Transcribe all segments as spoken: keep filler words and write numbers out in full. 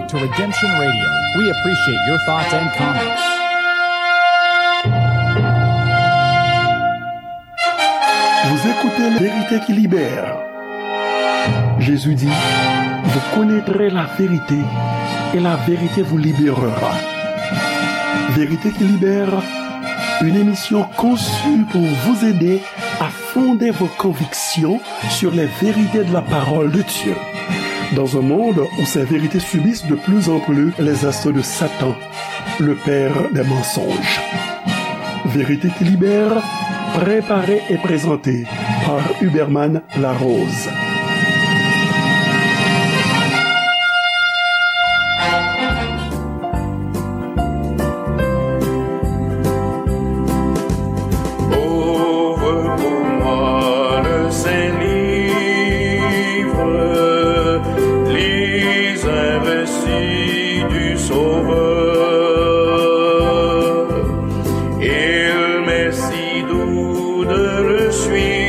to Redemption Radio. We appreciate your thoughts and comments. Vous écoutez La Vérité qui libère. Jésus dit, vous connaîtrez la vérité et la vérité vous libérera. Vérité qui libère, une émission conçue pour vous aider à fonder vos convictions sur les vérités de la parole de Dieu. Dans un monde où ces vérités subissent de plus en plus les assauts de Satan, le père des mensonges. Vérité qui libère, préparée et présentée par Huberman Larose. Ouvre pour moi le Saint-Livre, lis un récit du Sauveur. Il m'est si doux de le suivre,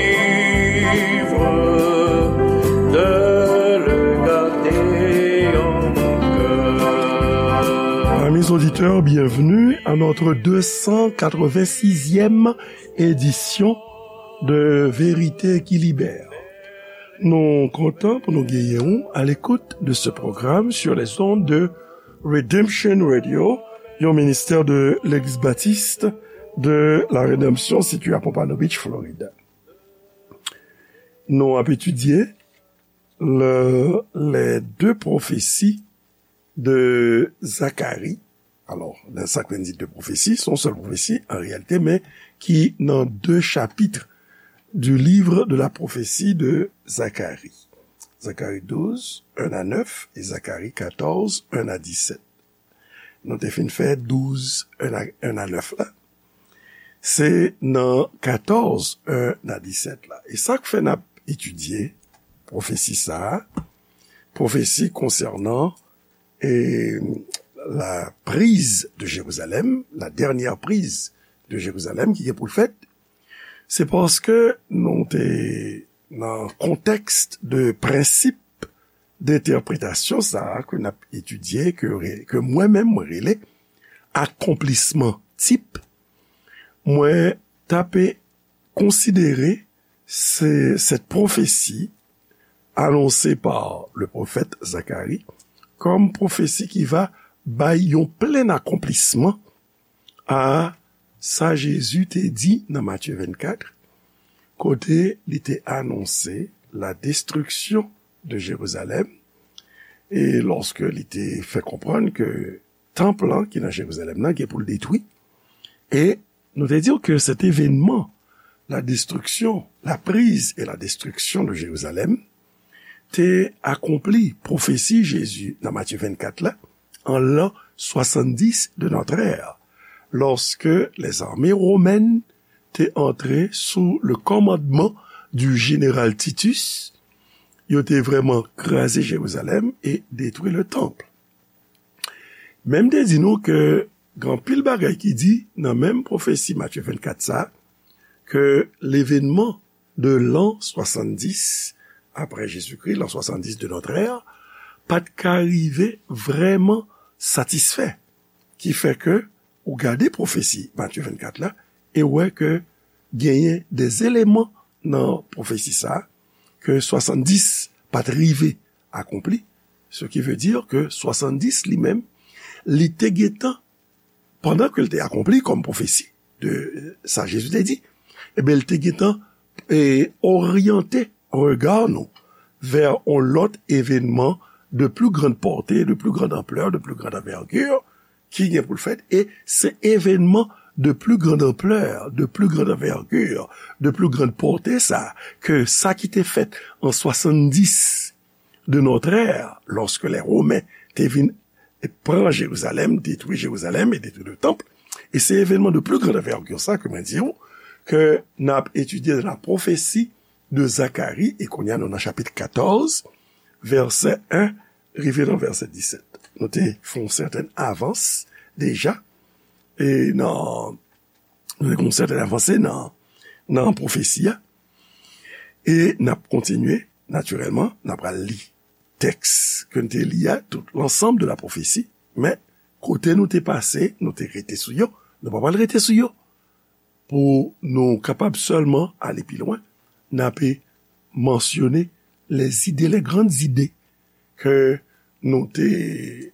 de le garder en mon cœur. Amis auditeurs, bienvenue à notre deux cent quatre-vingt-sixième édition de Vérité qui libère. Nou kontan pou nou genyen w à l'écoute de ce programme sur les ondes de Redemption Radio, yon ministè de Legliz Batis de la Rédemption situé à Pompano Beach, Floride. Nou ap etidye le, les deux prophéties de Zacharie. Alò, nan sa k vle di de pwofesi, se yon sèl pwofesi an reyalite, men ki nan de chapit du livre de la prophétie de Zacharie. Zacharie douze, un à neuf, et Zacharie quatorze, un à dix-sept. Nou te fin fè douz, un à, un à neuf la. Se nan katòz, un à disèt la. E sa k fè n ap etidye pwofesi sa a, pwofesi konsènan, e, la prise de Jérusalem, la dernière prise de Jérusalem ki gen pou l fèt, se paske nou te nan kontèks de prensip dentèpretasyon sa a ke n ap etidye, ke re-, ke mwen menm mwen rele akonplisman tip, mwen t ape konsidere se, cette prophétie annoncée par le prophète Zacharie comme prophétie qui va bay yon plen akonplisman a sa Jezi te di nan Matye vennkat, kote li te anonse la destruction de Jérusalem, e lòske li te fè konprann ke tanp lan ki nan Jerizalèm nan gen pou l detwi, e nou te di w ke cet événement, la destruction, la prise et la destruction de Jérusalem, te akonpli pwofesi Jezi nan Matye vennkat la, an l'an soixante-dix de notre ère, lorsque les armées romaines te antre sou le commandement du général Titus, yo te vrèman kraze Jerizalèm e detwi le temple. Men m te di nou ke gen anpil bagay ki di nan menm pwofesi Matye vennkat sa, ke l'événement de l'an soixante-dix après Jésus-Christ, l'an soixante-dix de notre ère, pa t ka rive vrèman satisfè. Ki fè ke ou gade pwofesi Matye vennkat la, e w wè ke genyen de eleman nan pwofesi sa a, ke soixante-dix pa t rive akonpli, ce qui veut dire que soixante-dix li menm, li te gentan, pandan ke l te akonpli kòm pwofesi de, euh, sa Jezi te di, ebyen, li te gentan, e, oryante rega nou vè yon lòt evènman de plus grande portée, de plus grande ampleur, de plus grande envergure, ki gen pou l fèt, e se evènman de plus grande ampleur, de plus grande envergure, de plus grande portée sa, ke sa ki te fèt an soixante-dix de notre ère, lorsque les Romains te vin pran Jerizalèm, detwi Jerizalèm e detwi le temple, e se evènman de plus grande envergure sa ke mwen di w, ke n ap etidye nan la pwofesi de Zacharie, e kounye a nou nan chapit katòz, vèsè en rive nan vèsè disèt. Nou te fè yon sèten avans deja, e nan, nou te fè yon sèten avanse nan, nan pwofesi a, e n ap kontinye, natirèlman, n ap pral li. tèks ke n te li a, tout l'ensemble de la prophétie, men kote nou te pase, nou te rete sou yo, nou pa pral rete sou yo. Pou nou kapab sèlman ale pi lwen, n ape mansyone les idées, les grandes idées ke nou te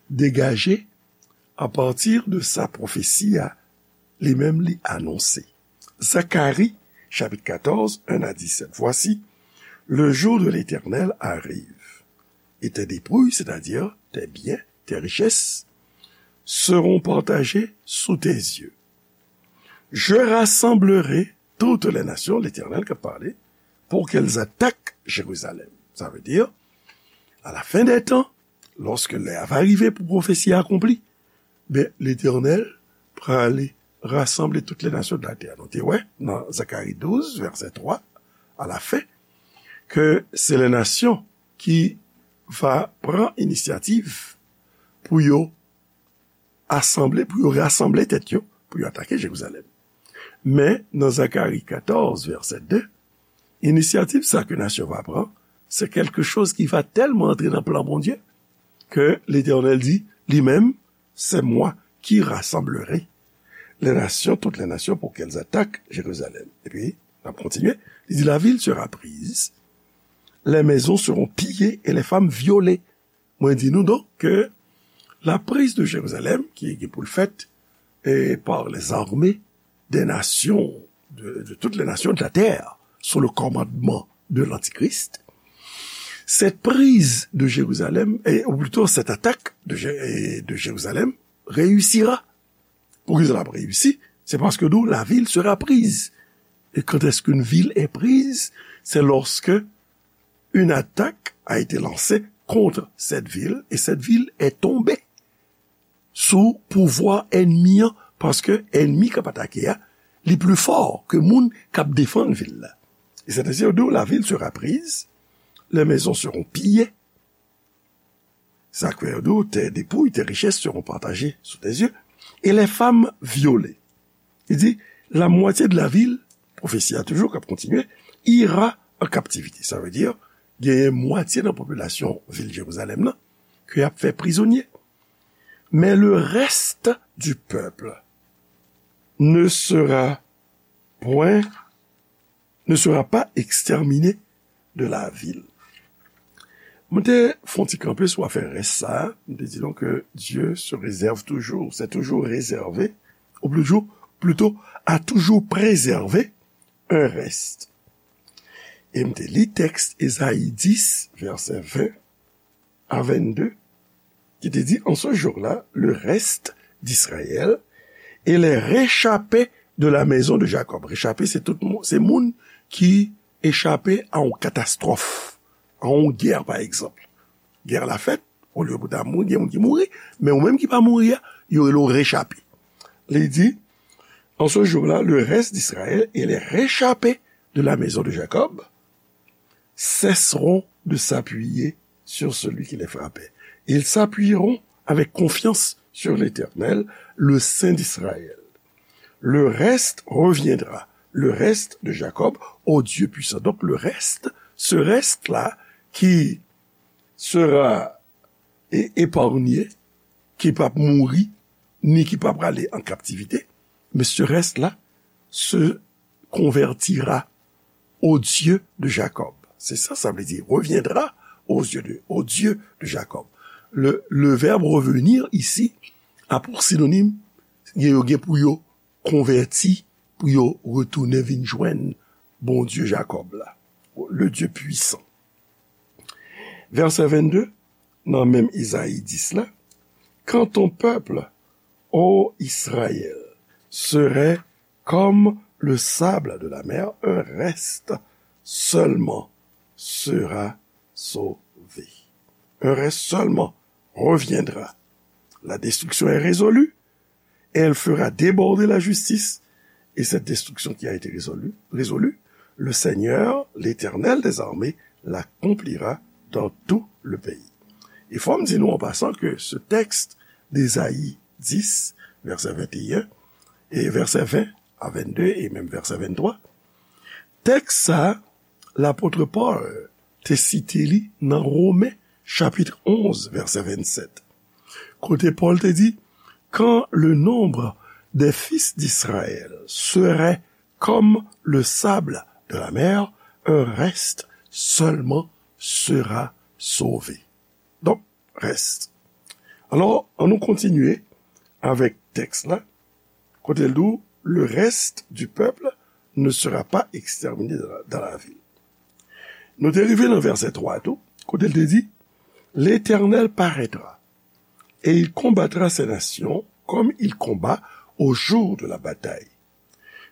degaje à partir de sa pwofesi a, li menm li anonse. Zacharie, chapitre quatorze, un à dix-sept. Voici, le jour de l'Éternel arrive, et tes dépouilles, c'est-à-dire tes biens, tes richesses, seront partagées sous tes yeux. Je rassemblerai toutes les nations, l'Éternel k ap pale, pour qu'elles attaquent Jérusalem. Sa vle di, à la fin des temps, lorsque l'heure va arriver pou pwofesi a akonpli, ben, Letènèl prale rasanble tout les nations de la terre. Nou te wè nan Zacharie douze, verset trois, à la fin, ke se les nations ki va pran inisyativ pou yo asanble, pou yo rasanble tèt yo, pou yo atake Jerizalèm. Men, nan Zacharie quatorze, verset deux, inisyativ sa ke nasyon va pran, se quelque chose qui va tellement entrer dans le plan Bondye, ke Letènèl di, li menm, c'est moi qui rassemblerai les nations, toutes les nations, pour qu'elles attaquent Jérusalem. Epi, n ap kontinye, li di, la ville sera prise, les maisons seront pillées et les femmes violées. Mwen di nou donk ke la prise de Jérusalem, ki gen pou l fèt, eh, par les armées des nations, de, de toutes les nations de la terre, sous le commandement de l'Antichrist, cette prise de Jérusalem, et, ou plutôt cette attaque de, Jé- et de Jérusalem, réussira. Poukisa l ap reyisi? Se paske nou, la ville sera prise. Et quand est-ce qu'une ville est prise? C'est lorsque une attaque a été lancée contre cette ville et cette ville est tombée sous pouvoir ennemi an, paske ennemi k ap atake a, li pli fò ke moun k ap defann vil la. Et c'est ainsi, la ville sera prise, les maisons seront pillées. Sa k fè yo di w, tes dépouilles, tes richesses seront partagées sous tes yeux, et les femmes violées. Li di, la moitié de la ville, pwofesi a toujou k ap kontinye, ira en captivité. Sa vle di, genyen mwatye nan popilasyon vil Jerizalèm nan ke y ap fè prizonye. Mais le reste du peuple ne sera point, ne sera pas exterminé de la ville. Mwen te fè yon ti kanpe sou afè rès sa a, mwen te di nou ke Dieu se réserve toujours, s'est toujours réservé, ou plutôt, plutôt, a toujours préservé un reste. E m te li tèks Ezayi dis, vèsè ven a vennde, ki te di, en ce jour-là, le reste d'Israël et les réchappés de la maison de Jacob. Réchappé, se tout moun, se moun ki echape a yon katastwòf, a yon gè, pa egzanp. Gè la fèt, olye pou ta mouri, gen moun ki mouri, men ou menm ki pa mouri a, yo rele w rechape. Li di, en ce jour-là, le reste d'Israël et les réchappés de la maison de Jacob cesseront de s'appuyer sur celui qui les frappait. Ils s'appuieront avec confiance sur l'Éternel, le Saint d'Israël. Le reste reviendra, le reste de Jacob, au Dieu puissant. Donc le reste, ce reste-là qui sera é- épargné, ki p ap mouri, ni ki p ap prale an kaptivite, mais ce reste-là se convertira au Dieu de Jacob. Se sa sa vle di, reviendra au Dieu de, au Dieu de Jacob. Le, le verbe revenir ici a pou sinonim, gen yo gen pou yo konvèti, pou yo retounen vin jwenn Bondye Jakòb la, le Dieu puissant. Vèsè vennde, nan menm Izayi dis la, quand ton peuple, ô Israël, serait comme le sable de la mer, un reste seulement sera sauvé. Un reste seulement reviendra. La destruction est résolue, elle fera déborder la justice, et cette destruction qui a été résolue, résolue, le Seigneur, l'Éternel des armées, l'accomplira dans tout le pays. E fò m di nou an pasan ke se tèks d'Ezayi dis, vèsè venteyen, e vèsè ven a vennde, e menm vèsè venntwa, tèks sa, lapot Pòl te site li nan Women, chapit onz, vèsè vennsèt, kote Pòl te di, Quand le nombre des fils d'Israël serait comme le sable de la mer, un reste seulement sera sauvé. Donk, rès. Alò, ann nou kontinye avèk tèks la, kote l di w, Le reste du peuple ne sera pas exterminé dans la, dans la ville. Nou te rive nan vèsè twa tou, kote l te di, L'Éternel paraîtra, et il combattra ces nations comme il combat au jour de la bataille.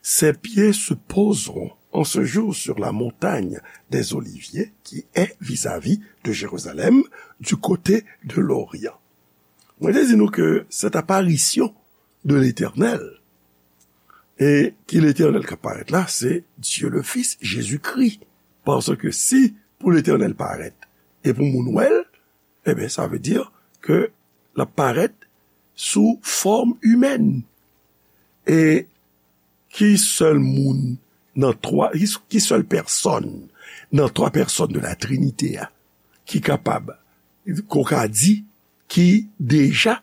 Ses pieds se poseront en ce jour sur la montagne des Oliviers qui est vis-à-vis de Jérusalem, du côté de l'Orient. Mwen te di nou ke cette apparition de l'Éternel, e ki Letènèl k ap parèt la, se Dye le Fis, Jezikri. Paske si pou Letènèl parèt e pou moun wè l, ebyen, sa vle di ke l ap parèt sou fòm imèn. E ki sèl moun nan twa, ki, ki sèl pèsòn nan twa pèsòn de la Trinite a ki kapab, ke w ka di, ki deja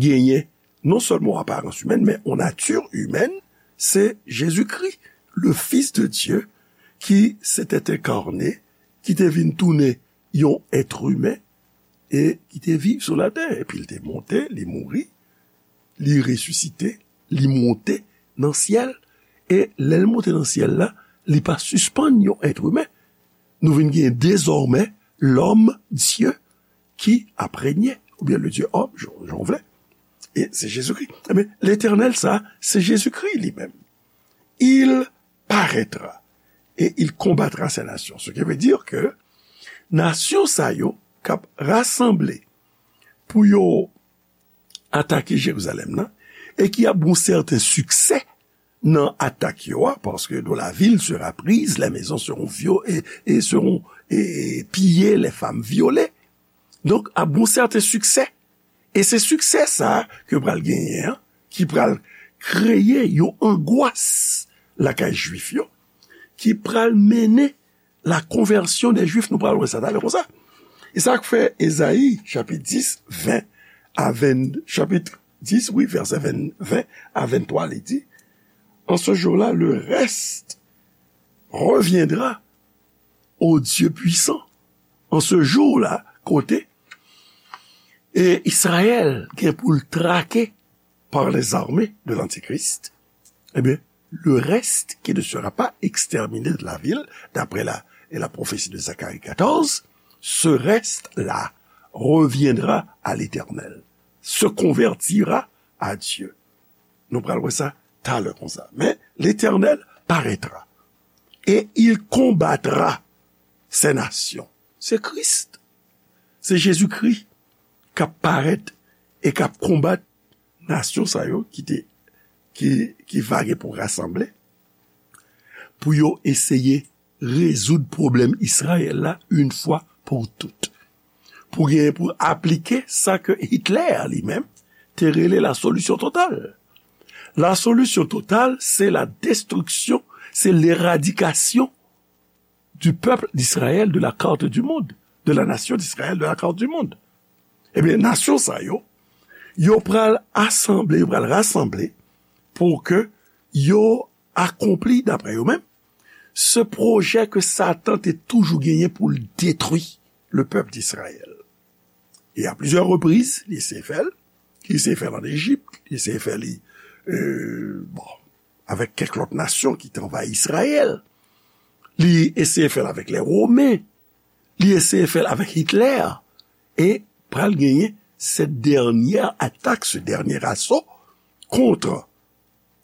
genyen non sèlman yon aparans imèn, men yon nati imèn, se Jezikri, le Fils de Dieu, qui s'était incarné, ki te vin tounen yon èt imen e ki te viv sou latè. Epi l te monte, li mouri, li resisite, li monte nan syèl. E lè l monte nan syèl la, li pa sispann yon èt imen. Nou vin gen dezòmè lòm Dye ki ap renye, oubyen le Dieu homme, jan, jan w vle. E se Jezikri. Ebyen, Letènèl sa, se Jezikri li menm. Il paraîtra et il combattra ces nations. Ce qui veut dire que nasyon sa yo k ap rasanble pou yo atake Jerizalèm nan, e ki ap gen yon sèten siksè nan atak yo a, paske dont la ville sera prise, les maisons seront vio-, et, et seront, et, et pillées, les femmes violées. Donk, ap gen yon sèten siksè. E se siksè sa a ke pral genyen an, ki pral kreye yon angwas lakay Jwif yo, ki pral mennen la conversion des Juifs, nou pral wè sa talè konsa. E sa k fè Ezayi, chapit dis, ven a ven, chapit dis, wi, vèsè ven, ven a venntwa, li di, En ce jour-là, le reste reviendra au Dieu puissant. En ce jour-là, kote, e Izrayèl gen pou l trake par les armées de l'Antichrist, eh bien, le reste qui ne sera pas exterminé de la ville, d'après la, et la prophétie de Zacharie quatorze, ce reste-là reviendra à l'Éternel, se convertira à Dieu. Nou pral wè sa talè konsa. Men, Letènèl parètra, e il konbatra se nasyon. Se Kris. Se Jezikri k ap parèt e k ap konbat nasyon sa yo ki te, ki, ki va gen pou rasanble, pou yo eseye rezoud pwoblèm Izrayèl la yon fwa pou tout. Pou genyen pou aplike sa ke Hitler li menm te rele la solution totale. La solution totale, c'est la destruction, c'est l'éradication du peuple d'Israël de la carte du monde, de la nation d'Israël de la carte du monde. Ebyen, nasyon sa yo, yo pral asanble, yo pral rasanble pou ke yo akonpli, daprè yo menm, se pwojè ke Satan te toujou genyen pou l detwi le pèp d'Izrayèl. E a plizyè repriz, li eseye fè l, li eseye fè l ann Ejip, li eseye fè li, euh, bon, avèk kèk lòt nasyon ki te anvayi Izrayèl. Li eseye fè l avèk lè Women. Li eseye fè l avèk Hitler. E pral genyen cette dernière attaque, ce dernier assaut contre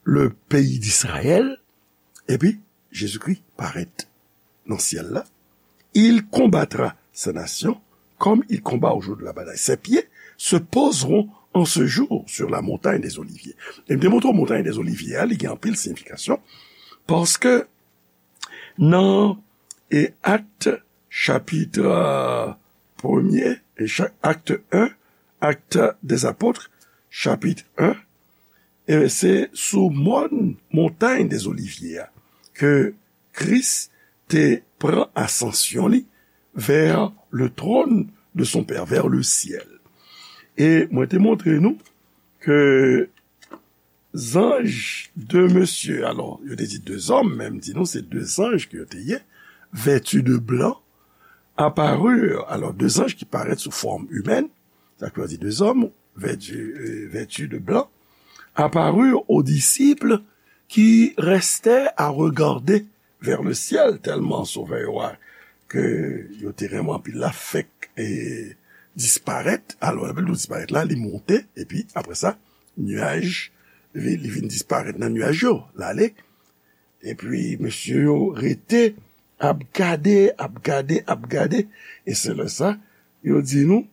le pays d'Israël. Epi, Jezikri parèt nan syèl la. Il combattra ces nations comme il combat au jour de la bataille. Ses pieds se poseront en ce jour sur la montagne des Oliviers. E m te montre w Montagne des Oliviers a, li gen anpil siyifikasyon, paske nan, e, Actes, chapit, euh, premye, e cha-, Acte un, Actes des Apôtres, chapit un, e se sou mòn, Montagne des Oliviers a, ke Kris te pran asansyon li, vers le trône de son Père, vers le ciel. E mwen te montre nou ke zanj de mesye, alò, yo te di de zòm, men m di nou se de zanj ke yo te ye, vêtus de blanc, apparurent, alò, de zanj ki parèt sou fòm imèn, sa k vle di de zòm, vêtus, euh, vêtus de blanc, apparurent aux disciples qui restaient à regarder vers le ciel, tèlman sovè yo a, ke yo te renmen anpil la, fèk e disparèt. Alò, lè nou disparèt la, li monte, epi apre sa, nyaj, li, li vin disparèt nan nyaj yo, l ale. Epi, mesye yo rete, ap gade, ap gade, ap gade. E se lè sa, yo di nou,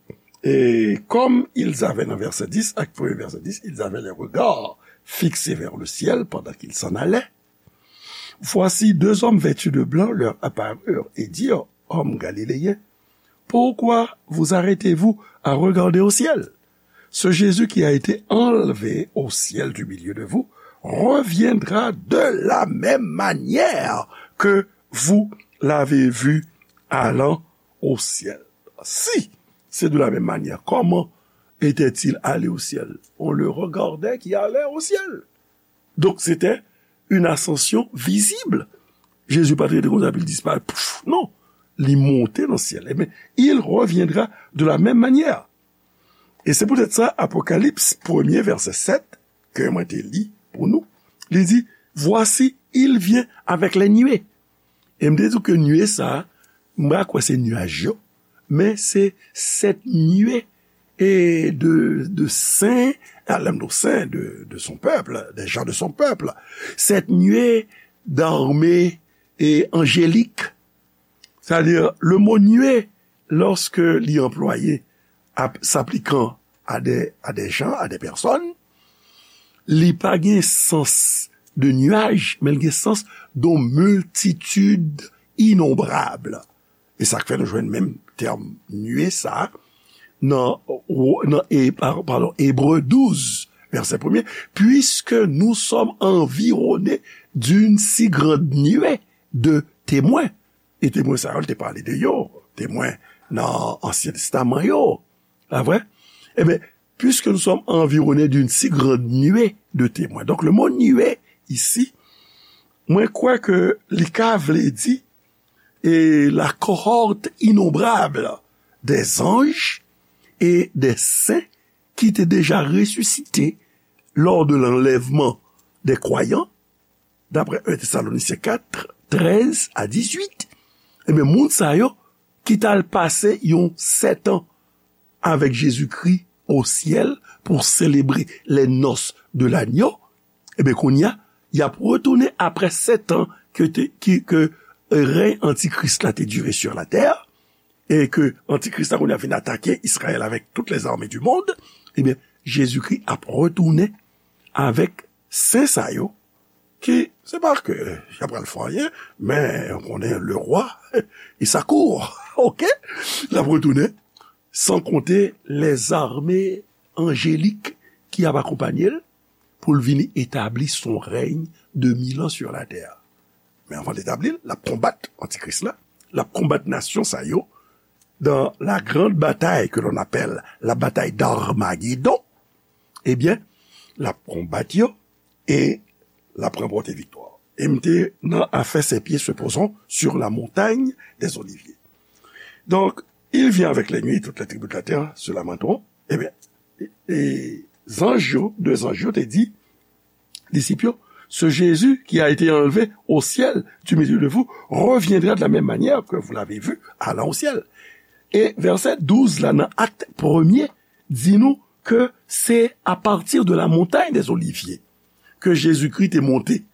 et comme ils avaient, nan vèsè dis, ak premye vèsè dis, ils avaient les regards fixés vers le ciel pendant qu'ils s'en allaient. Voici deux hommes vêtus de blanc leur apparurent et dirent, hommes galiléens, pourquoi vous arrêtez-vous à regarder au ciel ? Ce Jésus qui a été enlevé au ciel du milieu de vous reviendra de la même manière que vous l'avez vu allant au ciel. Si c'est de la même manière, comment était-il allé au ciel ? On le regardait qui allait au ciel. Donk, se te yon asansyon vizib. Jezi pa t rete konsa, epi l disparèt. Pouf, non. Li monte nan syèl. Ebyen, il reviendra de la même manière. E se poutèt sa, Apokalips, premye vèsè sèt, ke mwen te li pou nou, li di, voici, il vient avec les nuées. E m te di w ke nwe sa a, m pa kwè se nyaj yo, men se sèt nwe e de, de sen, a, lè m di w sen, de, de son pèp, des gens de son peuple. Sèt nwe d'armée e angélique. Sa vle di, le mo nwe, lòske li anplwaye ap, s'appliquant à des, à des gens, à des personnes, li pa gen sans de nuage, men li gen sans de multitude innombrable. E sa k fè nou jwenn menm tèm nwe sa a nan, nan e, pa- padon, Ebre douz, vèsè premye, puisque nous sommes environnés d'une si grande nuée de témoins. E temwen sa yo, l te pale de yo, temwen nan Ansyen Testaman yo. Pa vre? Ebyen, puisque nous sommes environnés d'une si grande nuée de témoins. Donk, le mot nuée, isi, mwen kwè ke li ka vle di, e la cohorte innombrable des anges et des saints qui étaient déjà ressuscités lors de l'enlèvement des croyants, d'après un Thessaloniciens quatre, treize à dix-huit, ebyen, moun sa yo ki t al pase yon sèt an avèk Jezikri o syèl pou selebre les noces de l'agneau, ebyen, kounye a, y ap retounen apre sèt an ke, te, ki, ke rèy antikris la te dire sur la terre, e ke antikris la kounye a vin atake Izrayèl avèk toutes les armées du monde, ebyen, Jezikri ap retounen avèk sen sa yo, ki, se pa ke y ap pral fè anyen, men ou konnen le roi, il s'accourt, ok? L ap retounen, san konte les armées angéliques ki ap akonpanye l pou l vini etabli son règne de mille ans sur la terre. Men anvan l etabli l, l ap konbat antikris la, l ap konbat nasyon sa yo, dans la grande bataille que l'on appelle la bataille d'Armagédon, ebyen, l ap konbat yo e l ap ranpòte viktwa. E m te nan afè ses pieds se poseront sur la montagne des Oliviers. Donc, il vient avec les nuées, toutes les tribus de la terre se lamenteront. Ebyen, e, e zanj yo, de zanj yo te di disip yo, ce Jésus qui a été enlevé au ciel du milieu de vous reviendra de la même manière que vous l'avez vu allant au ciel. E vèsè douz la nan Akt premye di nou ke se à partir de la montagne des Oliviers ke Jezikri te monte.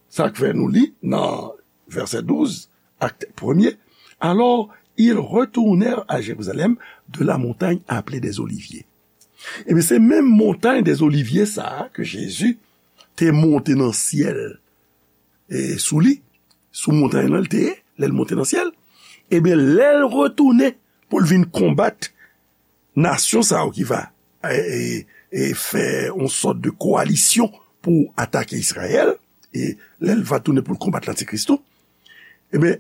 Sa k fè nou li nan vèsè douz, Akt premye, alors ils retournèrent à Jérusalem de la montagne appelée des Oliviers. Ebyen, se menm montagne des Oliviers sa a ke Jezi te monte nan syèl e sou li, sou montagne lan l te ye, lè l monte nan syèl. Ebyen, lè l retounen pou l vin konbat nasyon sa yo ki va, e, e, e fè yon sòt de koalisyon pou atake Izrayèl, e lè l va tounen pou l konbat Lantikris tou, ebyen,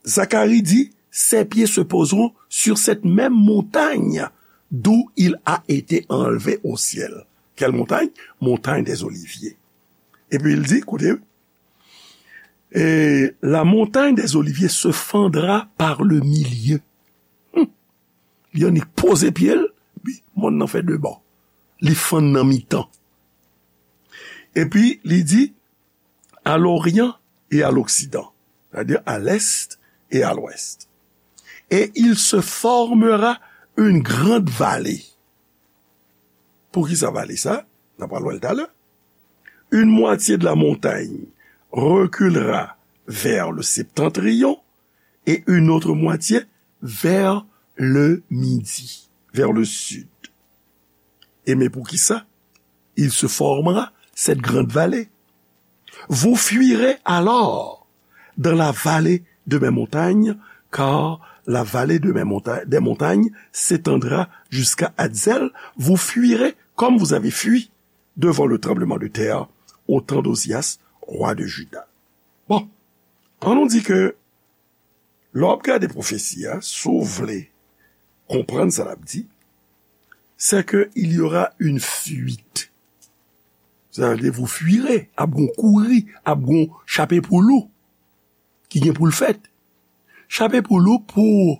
Zakari di, ses pieds se poseront sur cette même montagne d'où il a été enlevé au ciel. Quelle montagne? Montagne des Oliviers. Et puis il dit, écoutez, et la montagne des Oliviers se fendra par le milieu. Hmm. Li annik poze pye l, wi, mòn nan fè de bò. Li fann nan mitan. Epi, li di, à l'orient et à l'occident, c'est-à-dire à l'est et à l'ouest. Et il se formera une grande vallée. Pou ki sa vale sa? N ap pral wè l talè. Une moitié de la montagne reculera vers le septentrion et une autre moitié vers le midi, vers le sud. Et mais pour qui ça? Il se formera cette grande vallée. Vous fuirez alors dans la vallée de mes montagnes, car la vallée de mes monta- des montagnes s'étendra jusqu'à Adzel. Vous fuirez comme vous avez fui devant le tremblement de terre au temps d'Ozias, roi de Juda. Bon, an nou di ke lè w ap gade pwofesi a, si w vle konprann sa l ap di, c'est que il y aura une fuite. Sa vle di, vous fuirez, ap gon kouri, ap gon chape pou lou ki gen pou l fèt. Chape pou lou pou,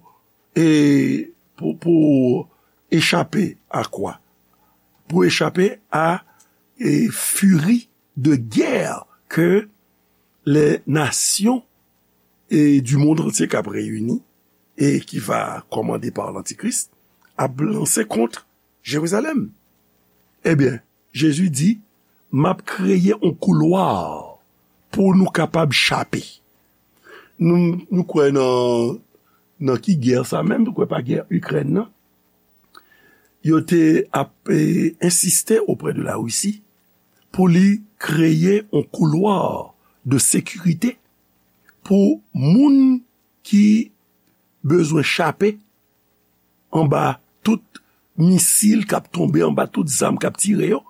e, pou, pou echape a kwa? Pou echape a, e, firi de guerre que les nations et du monde entier k ap reyini e ki va kòmande pa lantikris ap lanse kont Jerizalèm. Ebyen, Jezi di, m ap kreye yon koulwa pou nou kapab chape. Nou, nou kwè nan, nan ki gè sa menm, nou kwè pa gè Ikrèn nan. Yo te ap, e, ensiste auprès de la Russie pou li kreye yon koulwa de sekirite pou moun ki bezwen chape anba tout misil k ap tonbe, anba tout zam k ap tire yo,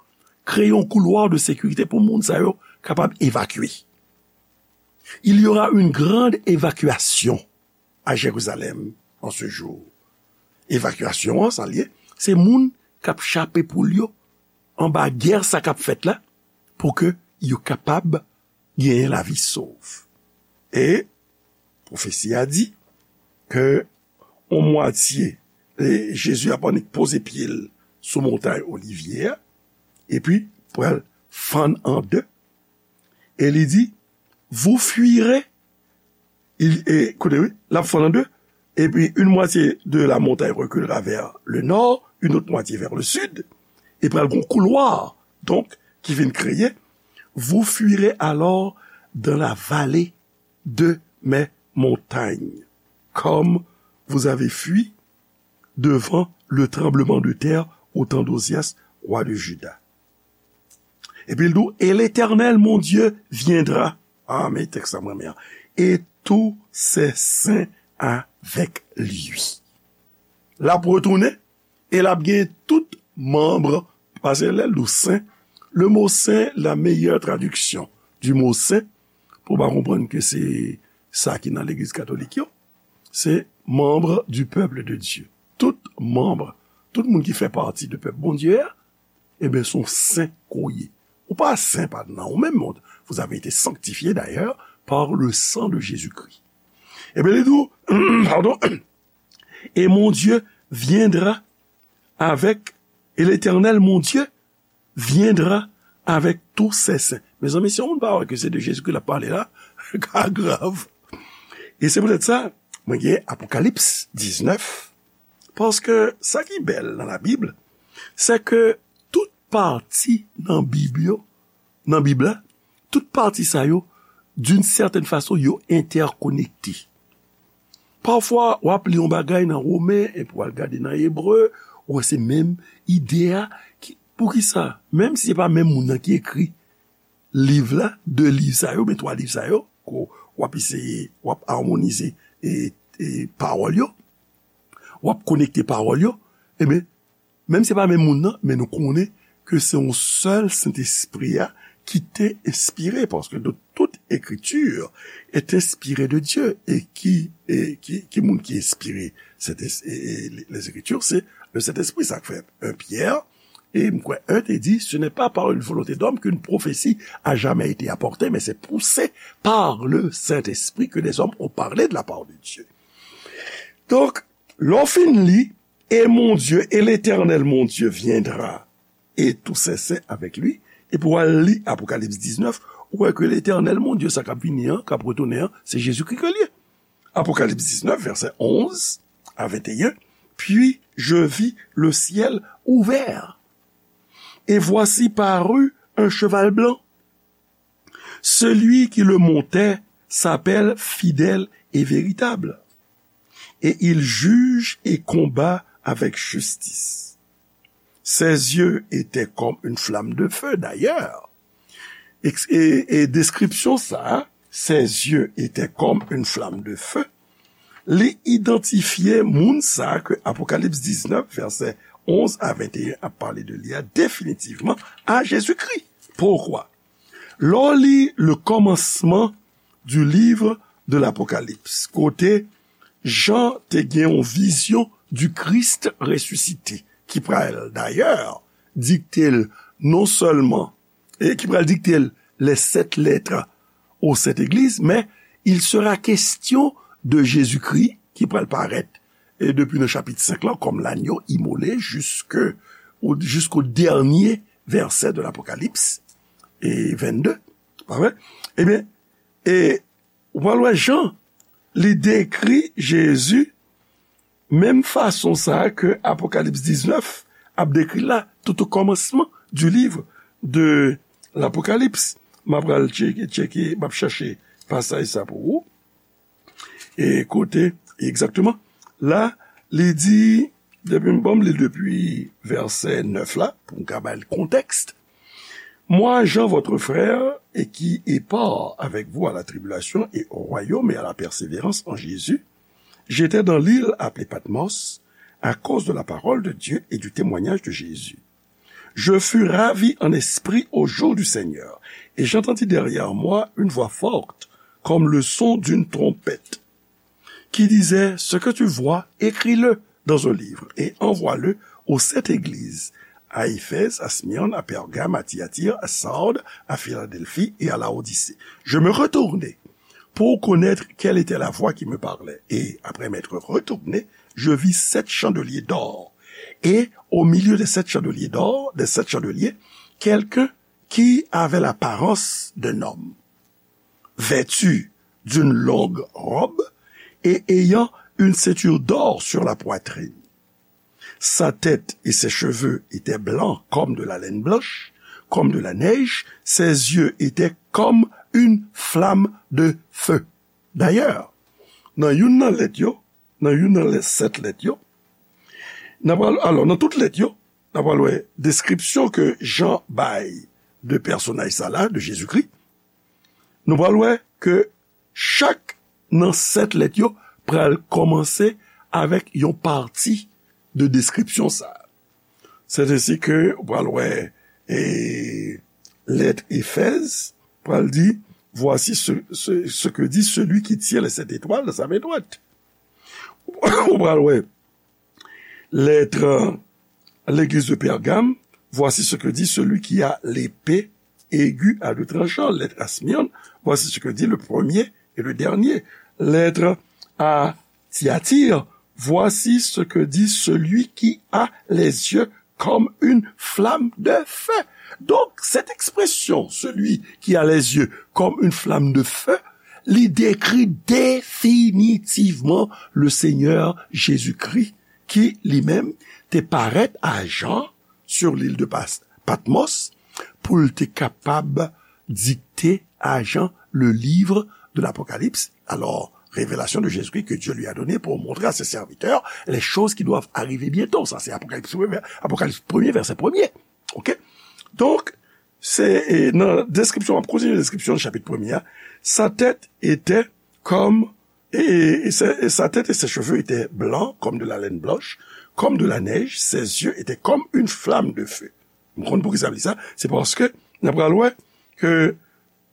kreye yon koulwa de sekirite pou moun sa yo kapab evakye. Il y aura une grande évacuation à Jérusalem en ce jour. Evakyasyon an, sa l ye, se moun k ap chape poul yo anba gè sa k ap fèt la, pou ke yo kapab genyen lavi sov. E pwofesi a di ke yon mwatye, e Jezi ap annik poze pye l sou montay Olivye a, epi pral fann an de, e li di, vous fuirez, il, e, koute, wi, l ap fann an de, epi une moitié de la montagne reculera vers le nord, une autre moitié vers le sud, e pral gon koulwa, donk, ki vin kreye, vous fuirez alors dans la vallée de mes montagnes, comme vous avez fui devant le tremblement de terre au temps d'Ozias, roi de Juda. Epi l di w, et l'Éternel, mon Dieu, viendra. Ah, men tèks la mwen renmen an. Et tous ses saints avec lui. L ap retounen, e l ap gen tout manm, paske lè l di w sen, le mo sen, la meilleure traduction du mot saint, pou w pa konprann ke se sa ki nan legliz katolik yo, se membre du peuple de Dieu. Tout manm, tout moun ki fè pati de pèp Bondye a, ebyen, se yon sen ke w ye. Ou pa sen pa nan ou menm, vous avez été sanctifiés d'ailleurs par le sang de Jésus-Christ. Ebyen, li di w, pardon, et mon Dieu viendra avec, et l'Éternel, mon Dieu, viendra avec tous ses saints. Mezanmi, si yon moun pa wè ke se de Jezikri l ap pale la, ka grav. E se poutèt sa, mwen gen Apokalips diznèf, paske sa ki bèl nan Labib, se ke tout pati nan Bib yo, nan Bib la, tout pati sa yo, d'une certaine façon, yo entèkonekte. Pafwa, w ap li yon bagay nan Women, epi w al gade nan Ebre, ou wè se menm ide a. Ki, poukisa? Menm si se pa menm moun nan ki ekri liv la, de liv sa yo, men twa liv sa yo, ke w ap eseye, w ap amonize, e, e, pawòl yo, w ap konekte pawòl yo, ebyen, menm se pa menm moun nan, men nou konnen ke se yon sèl Sentespri a ki te enspire, paske de tout ekritur est inspirée de Dieu, e ki, e ki, ki moun ki enspire? Sentespri, e, e, les Écritures, c'est le Saint-Esprit, sa k fè un Pierre, e m kwè un te di, ce n'est pas par une volonté d'homme qu'une prophétie a jamais été apportée, mais c'est poussé par le Saint-Esprit que des hommes ont parlé de la part de Dieu. Donk, lè w fin li, et mon Dieu, et l'Éternel mon Dieu viendra, et tous ses saints avec lui, epi w al li Apokalips diznèf, ou wè ke Letènèl, mon Dye, sa k ap vini an, k ap retounen an, se Jezikri ke l ye. Apokalips diznèf, vèsè onz a venteyen, puis je vis le ciel ouvert, et voici parut un cheval blanc. Celui qui le montait s'appelle Fidèle et Véritable, et il juge et combat avec justice. Ses yeux étaient comme une flamme de feu, d'ailleurs. E, e, e deskripsyon sa, ses yeux étaient comme une flamme de feu, li idantifye moun sa ke Apokalips diznèf, vèsè onz a venteyen ap pale de li a, definitivman a Jezikri. Poukwa? Lè w li le kòmansman du livre de l'Apocalypse, kote Jan te gen yon vizyon du Christ ressuscité, ki pral dayè dikte l non sèlman, e ki pral dikte l les sept lettres aux sept églises, men il sera question de Jésus-Christ ki pral parèt, e depi nan chapit senk lan, kòm l'agneau immolé jusque, au, jusqu'au dernier verset de l'Apocalypse, e vennde, pa vre? Ebyen, e ou pral wè Jan, li dekri Jezi menm fason sa a ke Apokalips diznèf ap dekri l la, tout au commencement du livre de l'Apocalypse. M ap pral tcheke, tcheke, m ap chèche pasaj sa pou ou. E kote egzakteman? La, li di, depi m, bon, m li depi vèsè nèf la, pou m ka bay kontèks. Moi, Jean, votre frère, et qui est part avec vous à la tribulation et au royaume et à la persévérance en Jésus, j'étais dans l'île appelée Patmos à cause de la parole de Dieu et du témoignage de Jésus. Je fus ravi en esprit au jour du Seigneur, et j'entendis derrière moi une voix forte, comme le son d'une trompette, qui disait, ce que tu vois, écris-le dans un livre et envoie-le aux sept églises, à Éphèse, à Smyrne, à Pergame, à Thyatire, à Sardes, à Philadelphie et à Laodicée. Je me retournai pour connaître quelle était la voix qui me parlait. Et après m'être retourné, je vis sept chandeliers d'or. Et au milieu des sept chandeliers d'or, des sept chandeliers, quelqu'un qui avait l'apparence d'un homme, vêtu d'une longue robe et ayant une ceinture d'or sur la poitrine. Sa tête et ses cheveux étaient blancs comme de la laine blanche, comme de la neige, ses yeux étaient comme une flamme de feu. D'ailleurs, nan youn nan lèt yo, nan youn nan lè, sèt lèt yo, n ap al, alò, nan tout lèt yo, n ap al wè deskripsyon ke Jan bay de pèsonaj sa la, de Jezikri. Nou pral wè ke chak nan sèt lèt yo pral kòmanse avèk yon pati de deskripsyon sa a. Sèt ensi ke ou pral wè, e, lèt Efèz pral di, voici ce, ce, ce que dit celui qui tient les sept étoiles dans sa main droite. Ou pral wè lèt, euh, l'église de Pergame, voici ce que dit celui qui a l'épée aiguë à deux tranchants. Lèt à Smyrne, voici ce que dit le premier et le dernier. Lèt à Thyatire, voici ce que dit celui qui a les yeux comme une flamme de feu. Donk, cette expression, celui qui a les yeux comme une flamme de feu, li dekri definitivman le Seigneur Jésus-Christ, ki li menm te parèt a Jan sur l'île de Pas-, Patmos, pou l te kapab dikte a Jan le livre de l'Apocalypse, alors révélation de Jésus-Christ que Dieu lui a donnée pour montrer à ses serviteurs les choses qui doivent arriver bientôt. Sa se Apokalips premye, Apokalips premye, vèsè premye. Oke? Donk, se, e, nan deskripsyon, m ap kontinye deskripsyon chapit premye a. Sa tête était comme, et, et sa, et sa tête et ses cheveux étaient blancs comme de la laine blanche, comme de la neige, ses yeux étaient comme une flamme de feu. M konn poukisa m di sa, se paske n ap pral wè ke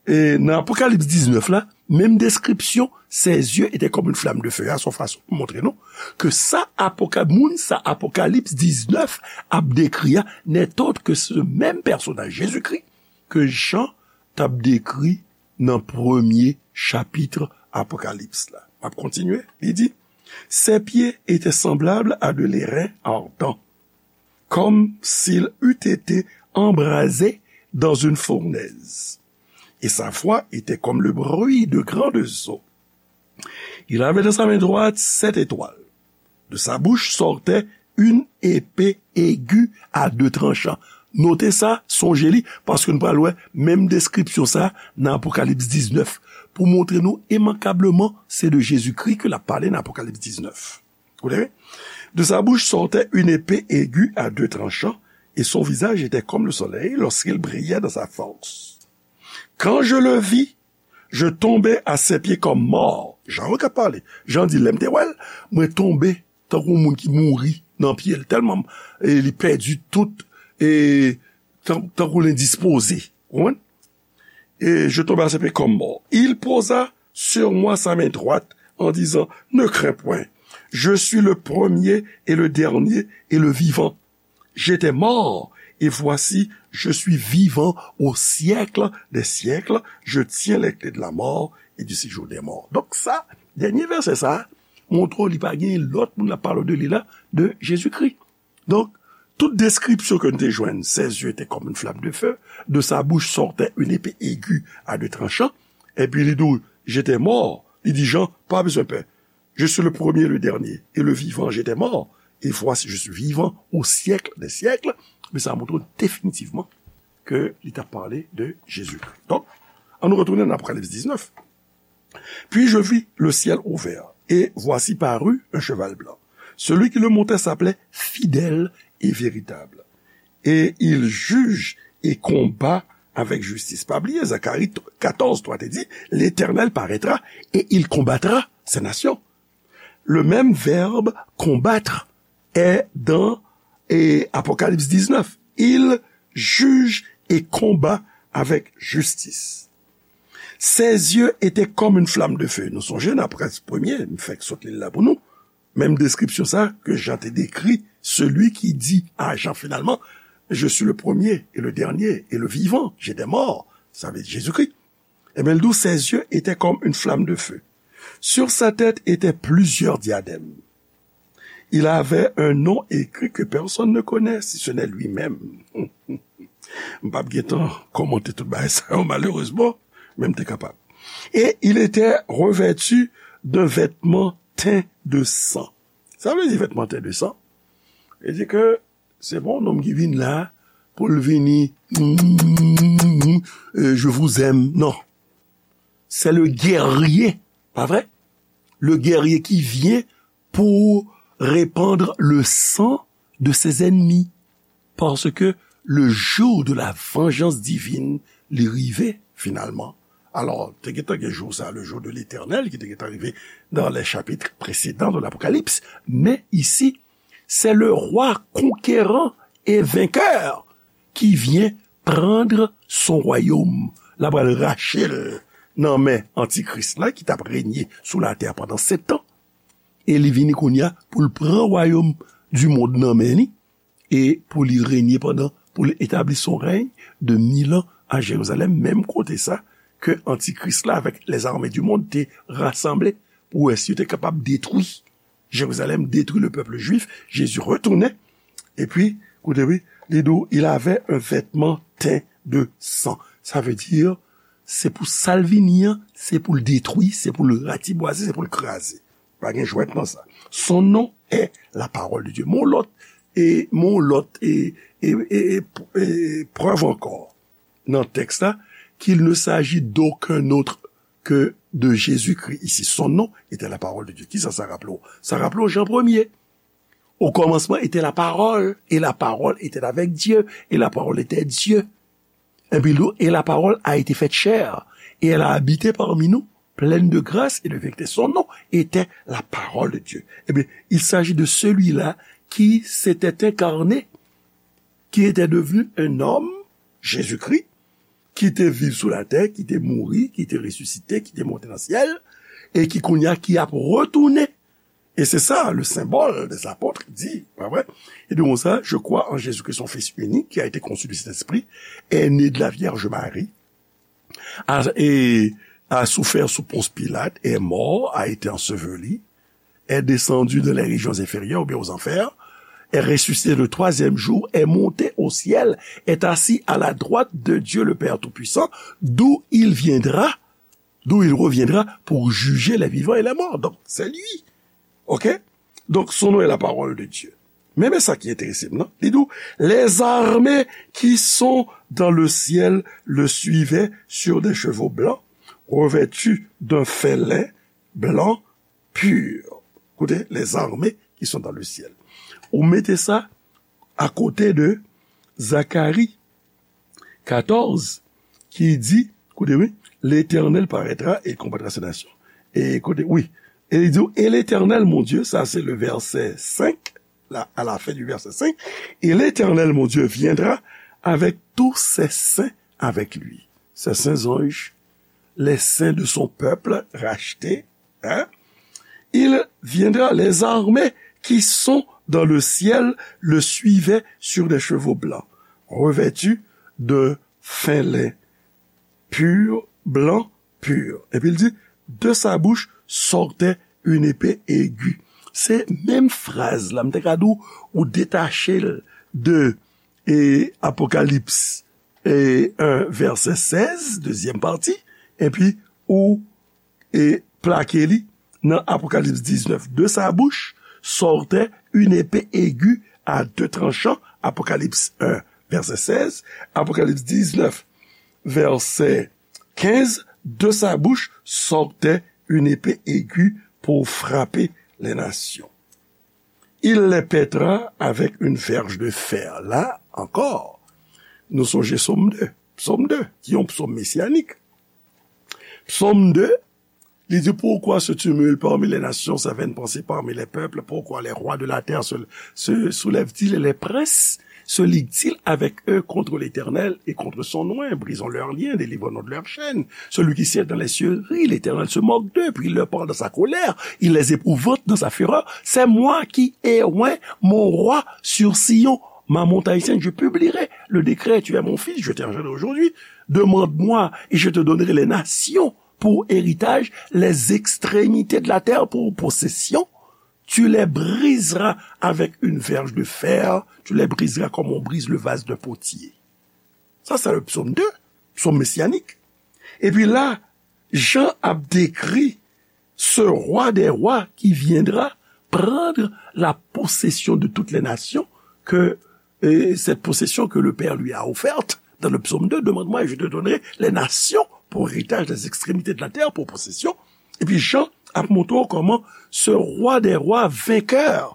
e nan Apokalips diznèf la, menm deskripsyon, ses yeux étaient comme une flamme de feu a, se yon fason pou montre nou ke sa Apoka-, moun sa Apokalips diznèf ap dekri a, n'est autre que ce même personnage, Jezikri, ke Jan t ap dekri nan premye chapit Apokalips la. M ap kontinye, li di, ses pieds étaient semblables à de l'airain ardent, comme s'il eût été embrasé dans une fournaise. Et sa voix était comme le bruit de grandes eaux. Il avait dans sa main droite sept étoiles. De sa bouche sortait une épée aiguë à deux tranchants. Note sa, sonje li, paske nou pral wè menm deskripsyon sa nan Apokalips diznèf, pou montre nou imankableman se de Jezikri ke l ap pale nan Apokalips diznèf. Vous voyez? De sa bouche sortait une épée aiguë à deux tranchants, et son visage était comme le soleil lorsqu'il brillait dans sa force. Quand je le vis, je tombai à ses pieds comme mort. Jan yo k ap pale. Jan di, lè m te wè l, mwen tonbe tankou moun ki mouri nan pye l. Tèlman e, li pèdi tout, e, tan- tankou l endispoze. Ou konprann? Et je tombai à ses pieds comme mort. Il posa sur moi sa main droite en disant, ne crains point. Je suis le premier et le dernier et le vivant. J'étais mort, et voici, je suis vivant au siècle des siècles. Je tiens les clés de la mort et du séjour des morts. Donk sa, dènye vèsè sa, montre w li pa gen lòt moun l ap pale de li la, de Jezikri. Donk, tout deskripsyon ke nou te jwenn, ses yeux étaient comme une flamme de feu, de sa bouche sortait une épée aiguë à deux tranchants, epi li di w, j'étais mort, li di Jan, pa bezwen pè. Je suis le premier, le dernier, et le vivant, j'étais mort, et voici, je suis vivant au siècle des siècles. Men sa montre definitivman ke li t ap pale de Jezikri. Donk, ann nou retounen nan Apokalips diznèf. Puis je vis le ciel ouvert, et voici parut un cheval blanc. Celui qui le montait s'appelait Fidèle et Véritable. Et il juge et combat avec justice. Pa bliye, Zacharie katòz twa te di, L'Éternel paraîtra et il combattra ces nations. Le même verbe combattre est dans e, Apocalypse dix-neuf. Il juge et combat avec justice. Ses yeux étaient comme une flamme de feu. Nou sonje nan Apocalypse premye, m fèk sot li la pou nou. Menm deskripsyon sa ke Jan te dekri, celui qui dit à Jean finalement, je suis le premier et le dernier et le vivant, j'étais mort, sa vle di Jezikri. Ebyen, l di w, ses yeux étaient comme une flamme de feu. Sur sa tête étaient plusieurs diadèmes. Il avait un nom écrit que personne ne connaît, si ce n'est lui-même. M p ap gen tan kòmante tout bagay sa yo, malerezman, men m te kapab. Et il était revêtu d'un vêtement teint de sang. Sa vle di vètman teint de sang? Vle di ke se pa yon nonm ki vin la pou l vini, euh, je vous aime. Non. C'est le guerrier, pa vre? Le guerrier qui vient pour répandre le sang de ses ennemis. Parce que le jour de la vengeance divine li rive, finalman. Alò, te gentan gen jou sa, le jour de l'Éternel, ki te gentan rive dans les chapitres précédents de l'Apocalypse. Men isi, c'est le roi conquérant et vainqueur qui vient prendre son royaume. L ap pral rache l nan men antikris la, ki t ap renye sou latè pandan sèt an. E li vini kounye a pou l pran wayòm di mond nan men li, e pou li renye pandan, pou l etabli son rèy de mil an a Jerizalèm, menm kote sa ke antikris la avèk les armées du monde te rasanble pou wè si yo te kapab detwi Jerizalèm, detwi le peuple juif. Jezi retounen, epi, koute wi, li di w, il avait un vêtement teint de sang. Sa vle di, se pou sa l vini an, se pou l detwi, se pou l ratibwaze, se pou l kraze. Pa gen jwèt nan sa. Son nom est la parole de Dieu. Mon lòt, e, mon lòt, e, e, e, e, e prèv ankò nan tèks la, qu'il ne s'agit d'aucun autre que de Jésus-Christ ici. Son nom était la parole de Dieu. Kisa sa raple w? Sa raple w Jan premye. Au commencement était la parole, et la parole était avec Dieu, et la parole était Dieu. Epi, li di, et la parole a été faite chair, et elle a habité parmi nous, pleine de grâce et de vérité. Son nom était la parole de Dieu. Eh bien, il s'agit de celui-là qui s'était incarné, qui était devenu un homme, Jésus-Christ, ki te viv sou latè, ki te mouri, ki te resisite, ki te monte nan syèl, e ki kounye a ki ap retounen. E se sa, le symbole des apôtres di, pa vre? E de konsa, je crois en Jésus-Christ, son Fils unique, qui a été conçu du Saint-Esprit, est né de la Vierge Marie, a, et a souffert sous Ponce Pilate, est mort, a été enseveli, est descendu dans les régions inférieures, ou bien aux enfers, est ressuscité le troisième jour, est monté au ciel, est assis à la droite de Dieu le Père Tout-Puissant, d'où il viendra, d'où il reviendra pour juger les vivants et les morts. Donc, c'est lui. OK? Donc, son nom est la parole de Dieu. Men, men sa ki enterese m nan, li di w, les armées qui sont dans le ciel le suivaient sur des chevaux blancs, revêtus d'un fin lin blanc pur. Koute, les armées qui sont dans le ciel. Ou mete sa akote de Zakari katòz, ki di, koute, wi, Letènèl parètra e konbatra se nasyon. E koute, wi, e li di, et l'Éternel, mon Dieu, sa se le vèsè senk, la, à la fin du verset cinq, et l'Éternel, mon Dieu, viendra avec tous ses saints avec lui. Ses saints anges, les saints de son peuple racheté, hein? Il viendra, les armées qui sont dans le ciel le suivaient sur des chevaux blancs, revêtus de fin lin, pur, blanc, pur. Epi l di, de sa bouche sortait une épée aiguë. Se menm fraz la, m te ka di w, ou detache l de, e, Apokalips, e, en, vèsè sèz, dezyèm pati, epi ou, e, plake li nan Apokalips diznèf. De sa bouche sortait une épée aiguë à deux tranchants, Apocalypse un, verset seize, Apocalypse dix-neuf, verset quinze, de sa bouche sortait une épée aiguë pour frapper les nations. Il les pètra avec une verge de fer. La ankò, nou sonje Sòm de, Sòm de, ki yon psòm mesianik. Psòm de, li di, pourquoi se tumulte parmi les nations, sa vaine pensée parmi les peuples? Pourquoi les rois de la terre se, se soulèvent-ils et les princes se liguent-ils avec eux contre l'Éternel et contre son oint? Brisons leurs liens, délivrons-nous de leurs chaînes. Celui qui siège dans les cieux rit, l'Éternel se moque d'eux, puis il leur parle dans sa colère, il les épouvante dans sa fureur. C'est moi qui ai oint mon roi sur Sion, ma montagne sainte, je publierai le décret, tu es mon fils, je t'ai engendré aujourd'hui. Demande-moi et je te donnerai les nations pour héritage, les extrémités de la terre pour possession. Tu les briseras avec une verge de fer, tu les briseras comme on brise le vase d'un potier. Sa se le psaume deux, psaume messianik. Epi la, Jan ap dekri ce roi des rois qui viendra prendre la possession de toutes les nations, que, et cette possession que le Père lui a offerte dans le psaume deux, demande-moi et je te donnerai les nations pour héritage, les extrémités de la terre pour possession. Epi Jan ap montre w kòman ce roi des rois vainqueur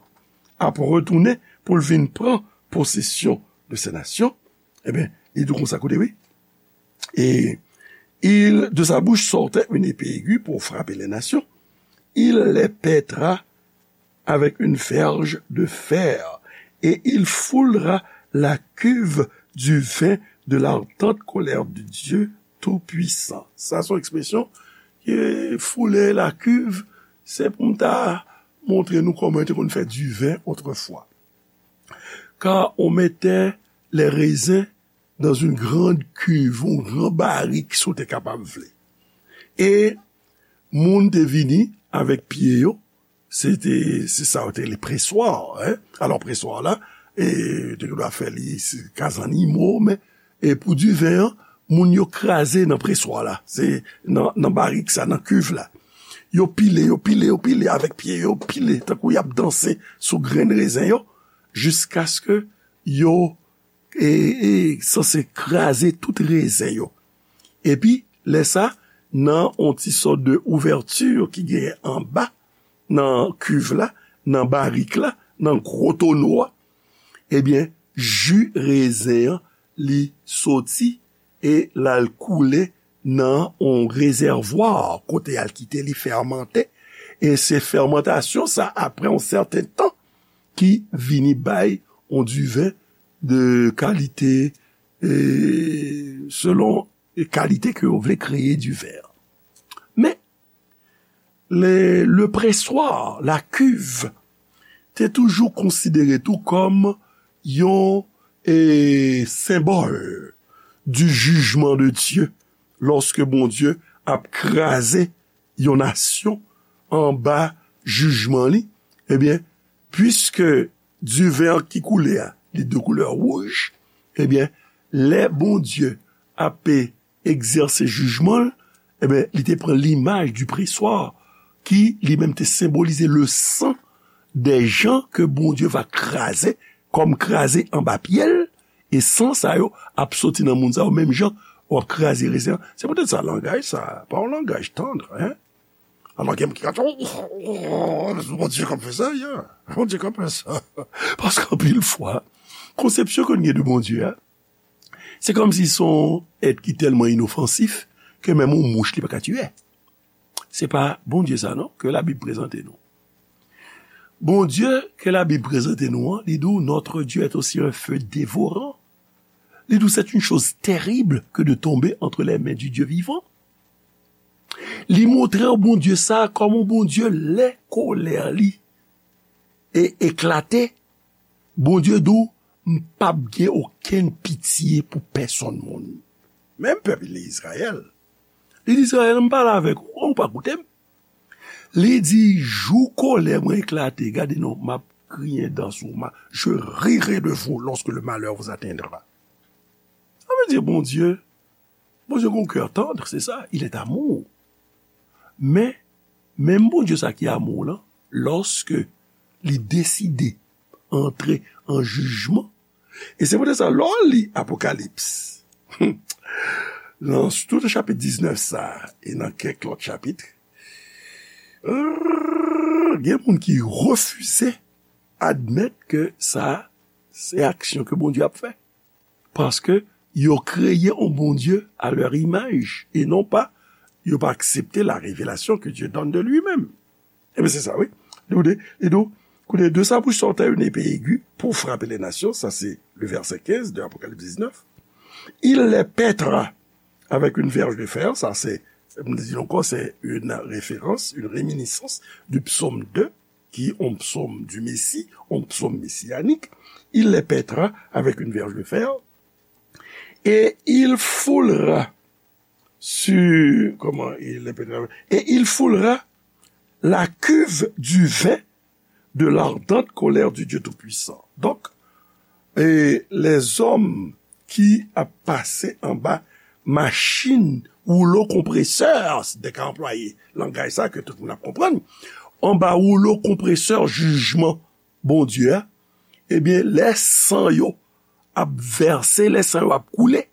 ap retounen pou l vin pran posesyon de ces nations. Ebyen, li di w konsa, koute, wi. Et il, de sa bouche sortait une épée aiguë pour frapper les nations. Il les pètra avec une verge de fer, et il foulera la cuve du vin de l'ardente colère de Dieu Tout-Puissant. Sa se yon ekspresyon ki foule la cuve, se pou m ta montre nou kòman yo te konn fè diven otrefwa. Car on mettait les raisins dans une grande cuve, yon gran barik, si w te kapab vle. E moun te vini avèk pye yo, se te, se sa yo te rele preswa, hein? Alò, preswa la, e, te dwa fè li, se kaz annimo, men, e pou diven an, moun yo kraze nan preswa la, se nan, nan barik sa, nan cuve la. Yo pile, yo pile, yo pile avèk pye yo, pile, tankou y ap danse sou grenn rezen yo, jiskaske yo e, e sanse kraze tout rezen yo. Epi, lè sa, nan yon ti sòt de ouvèti ki genyen anba, nan cuve la, nan barik la, nan gwo tono a, ebyen, ji rezen an, li soti e l al koule nan yon rezèvwa kote y al kite li fèmante. E se fèmantasyon sa, apre yon sèten tan, ki vini bay yon diven de kalite, e, selon kalite ke yo vle kreye diven. Men, le, le preswa, la cuve, te toujou konsidere tou kòm yon e, senbòl du jugement de Dieu, lòske Bondye ap kraze yon nasyon anba jijman li, ebyen, piske diven an ki koule a, li de koulè wouj, ebyen, lè Bondye ape egzèse jijman l, ebyen, li te pran limaj du preswa ki li menm te senbolize le san des gens ke Bondye va kraze, kòm kraze anba pye l, e san sa yo ap soti nan moun sa yo, menm jan w ap kraze rezen an. Se poutèt sa, langaj sa, pa yon langaj tandr, hein? Alò, gen moun ki ka di, oh, oh, oh, Bondye k ap fè sa, yeah. Bondye k ap fè sa. Paske anpil fwa, konsepsyon ke nou gen de Bondye a, se kòmsi se yon èt ki tèlman inofansif ke menm yon mouch li pa ka tiye. Se pa Bondye sa non ke Labib prezante nou. Bondye ke Labib prezante nou an, li di w, notre Dieu est aussi un feu dévorant. Li di w, c'est une chose terrible que de tomber entre les mains du Dieu vivant. Li montre w Bondye sa kòm yon Bondye lè kolè li e eklate, Bondye di w, m p ap gen okenn pitye pou pèsonn moun. Menm pèp li Izrayèl. Li di Izrayèl, m pale avèk ou, ou pa koute m. Li di, jou kolè mwen eklate, gade non, m ap griyen dan sou w, ma, je rirai de vous lorsque le malheur vous atteindra. Sa vle di Bondye, Bondye gen yon kè tandr, se sa, il est amour. Men, menm Bondye sa ki amour lan, lòske li deside antre an jijman, e se poutèt sa, lè w li Apokalips, nan tout chapit diznèf sa, e nan kèk lòt chapit, gen moun ki refize admèt ke sa se aksyon ke Bondye ap fè. Paske yo kreye yon Bondye à leur image, e non pa, yo pa aksepte la révélation que Dieu donne de lui-même. Ebyen, se sa, wi. Li di, li di, koute, de sa bouche sortait une épée aiguë pour frapper les nations, ça c'est le verset quinze de Apocalypse dix-neuf. Il les pètra avec une verge de fer, ça c'est, m di ankò, c'est une référence, une réminiscence du psaume deux, qui est un psaume du Messie, un psaume messianique. Il les pètra avec une verge de fer, et il foulera sur, comment il les pètra, et il foulera la cuve du vin de l'ardente colère du Dieu Tout-Puissant. Donk, e lèzòm ki ap pase anba machin woulo konpresè, si te ka anplwaye langaj sa ke tout moun ap konprann, anba woulo konpresè jijman Bondye a, ebyen, lè san yo ap vèse, lè san yo ap koule,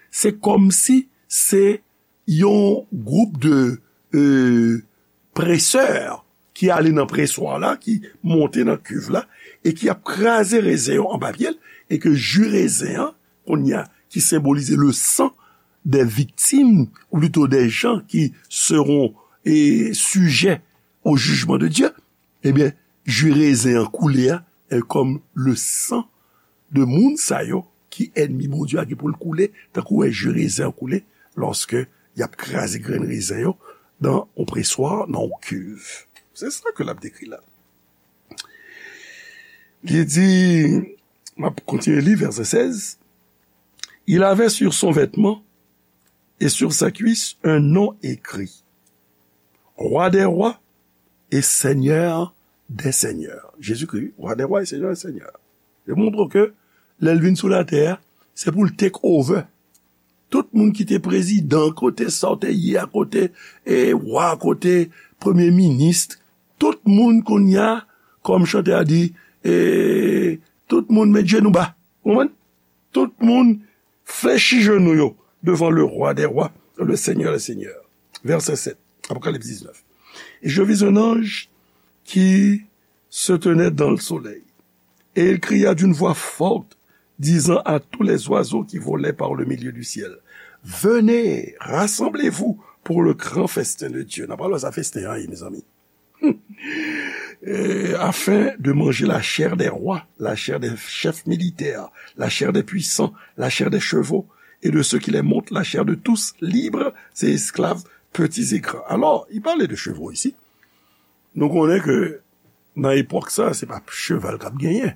se kòmsi se yon gwoup de, e, presè ki ale nan preswa la, ki monte nan kiv la, e ki ap kraze rezen yo anba pye l, e ke ji rezen an, kounye a, ki senbolize le san des victimes, ou plito des gens qui seront, e, sujets au jugement de Dieu, ebyen, ji rezen an koule a, e, kòm le san de moun sa yo ki ènmi Bondye a gen pou l koule, tankou wè ji rezen an koule, lòske y ap kraze grenn rezen yo nan yon preswa, nan yon kiv. Se sa ke l ap dekri la. Li di, m ap kontinye li, vèsè sèz, il avait sur son vêtement et sur sa cuisse un nom écrit, Roi des rois et Seigneur des seigneurs. Jezikri, Roi des rois et Seigneur des seigneurs. Li montre ke lè l vin sou latè a, se pou l take over. Tout moun ki te prezidan, kote sa w te ye a, kote, e, wa, kote premye minis, tout moun kounye a, kòm chantè a di, e, tout moun met jenou ba. Ou konprann? Tout moun flechi jenou yo devant le Roi des rois, le Seigneur des seigneurs. Verset sept, Apocalypse dix-neuf. Et je vis un ange qui se tenait dans le soleil. Et il cria d'une voix forte, disant à tous les oiseaux qui volaient par le milieu du ciel, venez, rassemblez-vous pour le grand festin de Dieu. N ap pale sa festen an, mezanmi. Euh, afin de manger la chair des rois, la chair des chefs militaires, la chair des puissants, la chair des chevaux, et de ceux qui les montent, la chair de tous, libres et esclaves, petits et grands. Alò, li pale de cheval isi. Nou konnen ke nan epòk sa, se pa cheval k ap genyen.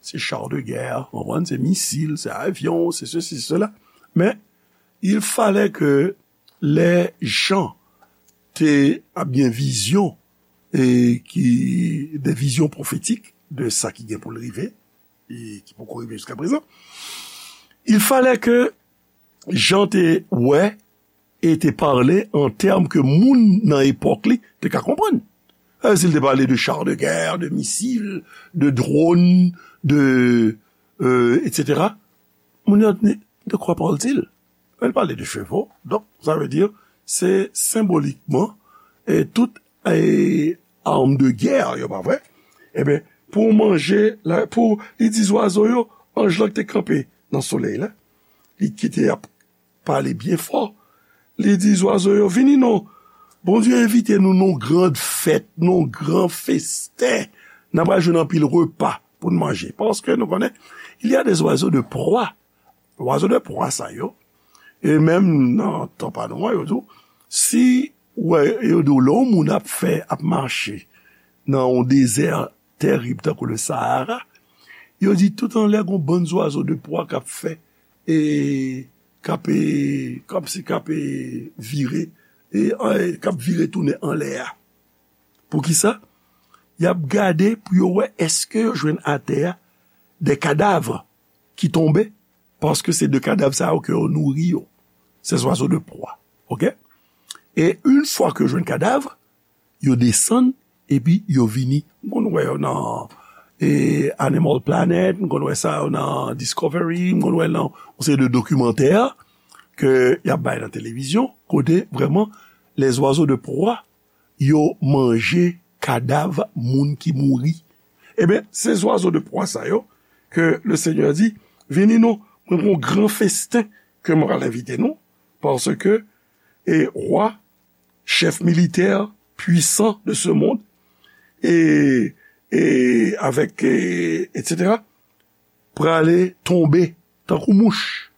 Se char de guerre, w konprann? Se misil, se avyon, se sesi, se sela. Men, il fallait que lè Jan te ap gen vizyon, e ki, de vizyon pwofetik de sa ki gen pou l rive, e ki poko rive jiska prezan, il fallait que Jan te wè e te pale an tèm ke moun nan epòk li te ka konprann. E si l te pale de char de guerre, de misil, de drone, de, euh, et cetera, moun yo te di, de quoi parle-t-il? Li pale de cheval. Donk, sa vle di, se senbolikman, e tout, e, arm de guerre yo, pa vre? Ebyen, pou manje, la, pou, li di zwazo yo, anj lan ki te kanpe nan solèy la, li ki te ap pale byen fò, li di zwazo yo, vini non, Bondye envite nou nan yon gran fèt, nan yon gran festen, n ap jwenn anpil repa pou n manje. Paske nou konnen, il y a des oiseaux de proie. Oiseaux de proie sa yo, e menm nan tan pa nou an, yo di w, si w wè, yo di w lè yon moun ap fè, ap mache nan yon dezè tèrib tankou le Sahara, yo di tout anlè gon bann zwazo de pwa k ap fè, e k ap, e, kòmsi k ap, e, vire, e, e, k ap vire tounen anlè a. Poukisa? Y ap gade pou yo wè èske yo jwenn atè a de kadav ki tonbe, paske se de kadav sa yo ke yo nouri yo. Ces oiseaux de proie. Oke? E yon fwa ke yo jwenn kadav, yo desann, epi yo vini. M konn wè yo nan, e, Animal Planet, m konn wè sa yo nan Discovery, m konn wè nan yon seri de dokimantè ke y ap bay nan televizyon, kote vrèman les oiseaux de proie, yo manje kadav moun ki mouri. Ebyen, se zwazo de pwa sa yo ke le Senyè di, vini non, mwen gen yon gran festen ke mwen pral envite nou, paske, e, wa, chèf militè pwisan de ce monde, e, e avèk, e, et cetera, prale tonbe tankou mouch.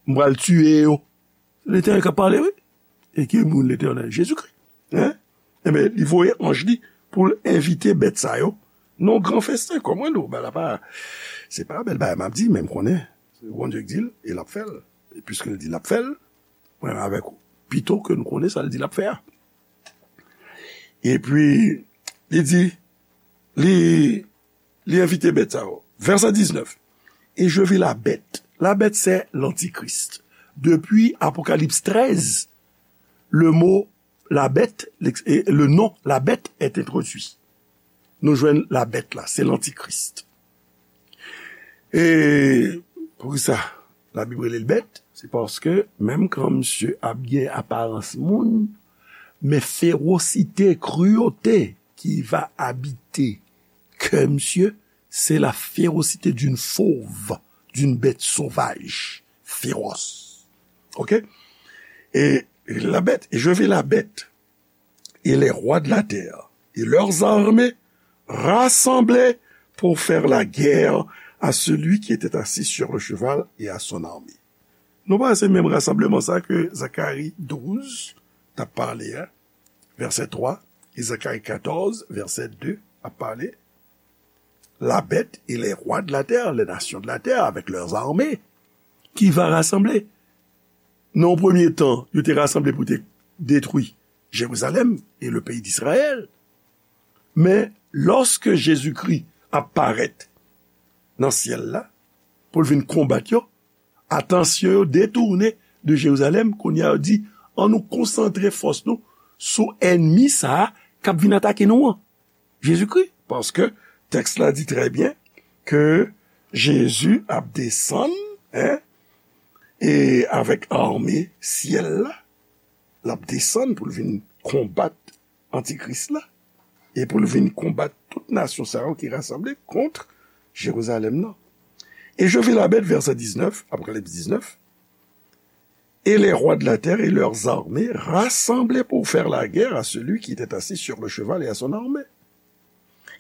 M pral tiye yo. Letènèl k ap pale, wi. E ki moun Letènèl? Jezikri. Hein? Ebyen, li voye anj li pou l envite bèt sa yo nan gran festen. Kòm mwen di w, bagay la pa, se pa bèl bagay m ap di, men m konnen se Bondye k di l, e l ap fè l. E piske l di l ap fè l, mwen avèk ou, pito ke nou konnen sa l di l ap fè a. Epi, li di, li, li envite bèt sa yo. Verset dix-neuf. Et je vis la bête. La bête, c'est l'antichrist. Depuis Apocalypse treize, le mot la bête, l'ex-, et le nom la bête est introduit. Nou jwenn la bèt la, se lantikris. E poukisa Labib rele l bèt? Se paske menm kan misye ap gen aparans moun, men ferosite, cruauté qui va habiter kè misye, c'est la férocité d'une fauve, d'une bête sauvage, féroce. Ok? Et la bête, et je vis la bête, et les rois de la terre, et leurs armées, rassemblés pour faire la guerre à celui qui était assis sur le cheval et à son armée. Nou pa se menm rasanbleman sa ke Zakari douz t ap pale a, vèsè twa, e Zakari katòz, vèsè de ap pale. La bête et les rois de la terre, les nations de la terre avec leurs armées, qui va rassembler. Nan yon premye tan, yo te rasanble pou te detwi Jerizalèm e le peyi d'Israël. Men, lòske Jezikri ap parèt nan syèl la, pou l vin konbat yo, atansyon yo detounen de Jerizalèm, kounye a yo di, ann nou konsantre fòs nou sou ènmi sa a k ap vin atake nou an. Jezikri. Paske tèks la di trè byen ke Jezi ap desann, en, e avèk ame syèl la, l ap desann pou l vin konbat antikris la, e pou l vin konbat tout nasyon sa yo ki rasanble kont Jerizalèm nan. Et je vis la bête, verset dix-neuf, Apocalypse dix-neuf, et les rois de la terre et leurs armées rassemblés pour faire la guerre à celui qui était assis sur le cheval et à son armée.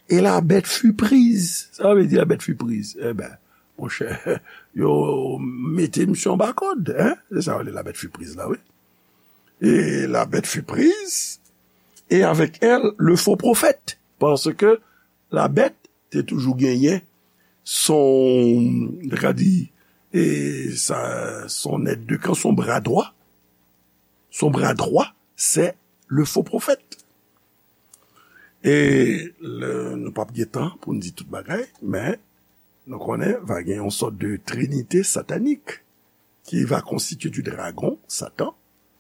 Et la bête fut prise. Sa vle di la bèt fi priz? Eben, monchè, yo mete misye anba kòd, hein? Se sa yo rele la bête fut prise la, wi. Et la bête fut prise, et avec elle, le faux prophète. Paske la bèt te toujou genyen son, nou ka di, e sa, son èd de kan, son bra dwa. Son bra dwa, se le faux prophète. E le, nou p ap gen tan pou n di tout bagay, men nou konnen va gen yon sòt de trinite satanik qui va constituer du dragon, Satan,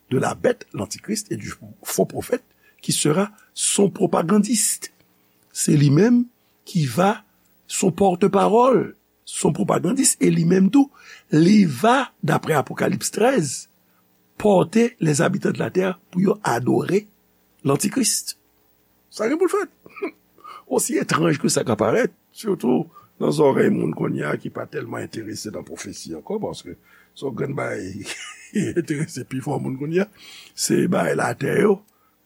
de la bête, l'antichrist, et du faux prophète, qui sera son propagandiste. Se li menm ki va son pòtpawòl, son propagandis, e li menm tou, li va, daprè Apokalips trèz, pòte les habitants de la terre pou yo adore l'antichrist. Sa gen pou l fèt. Osi etranj ke sa ka parèt, sitou nan zòrèy moun kounye a ki pa tèlman enterese nan pwofesi ankò, paske se yon grenn bagay ki enterese pifò moun kounye a, se bagay latè yo.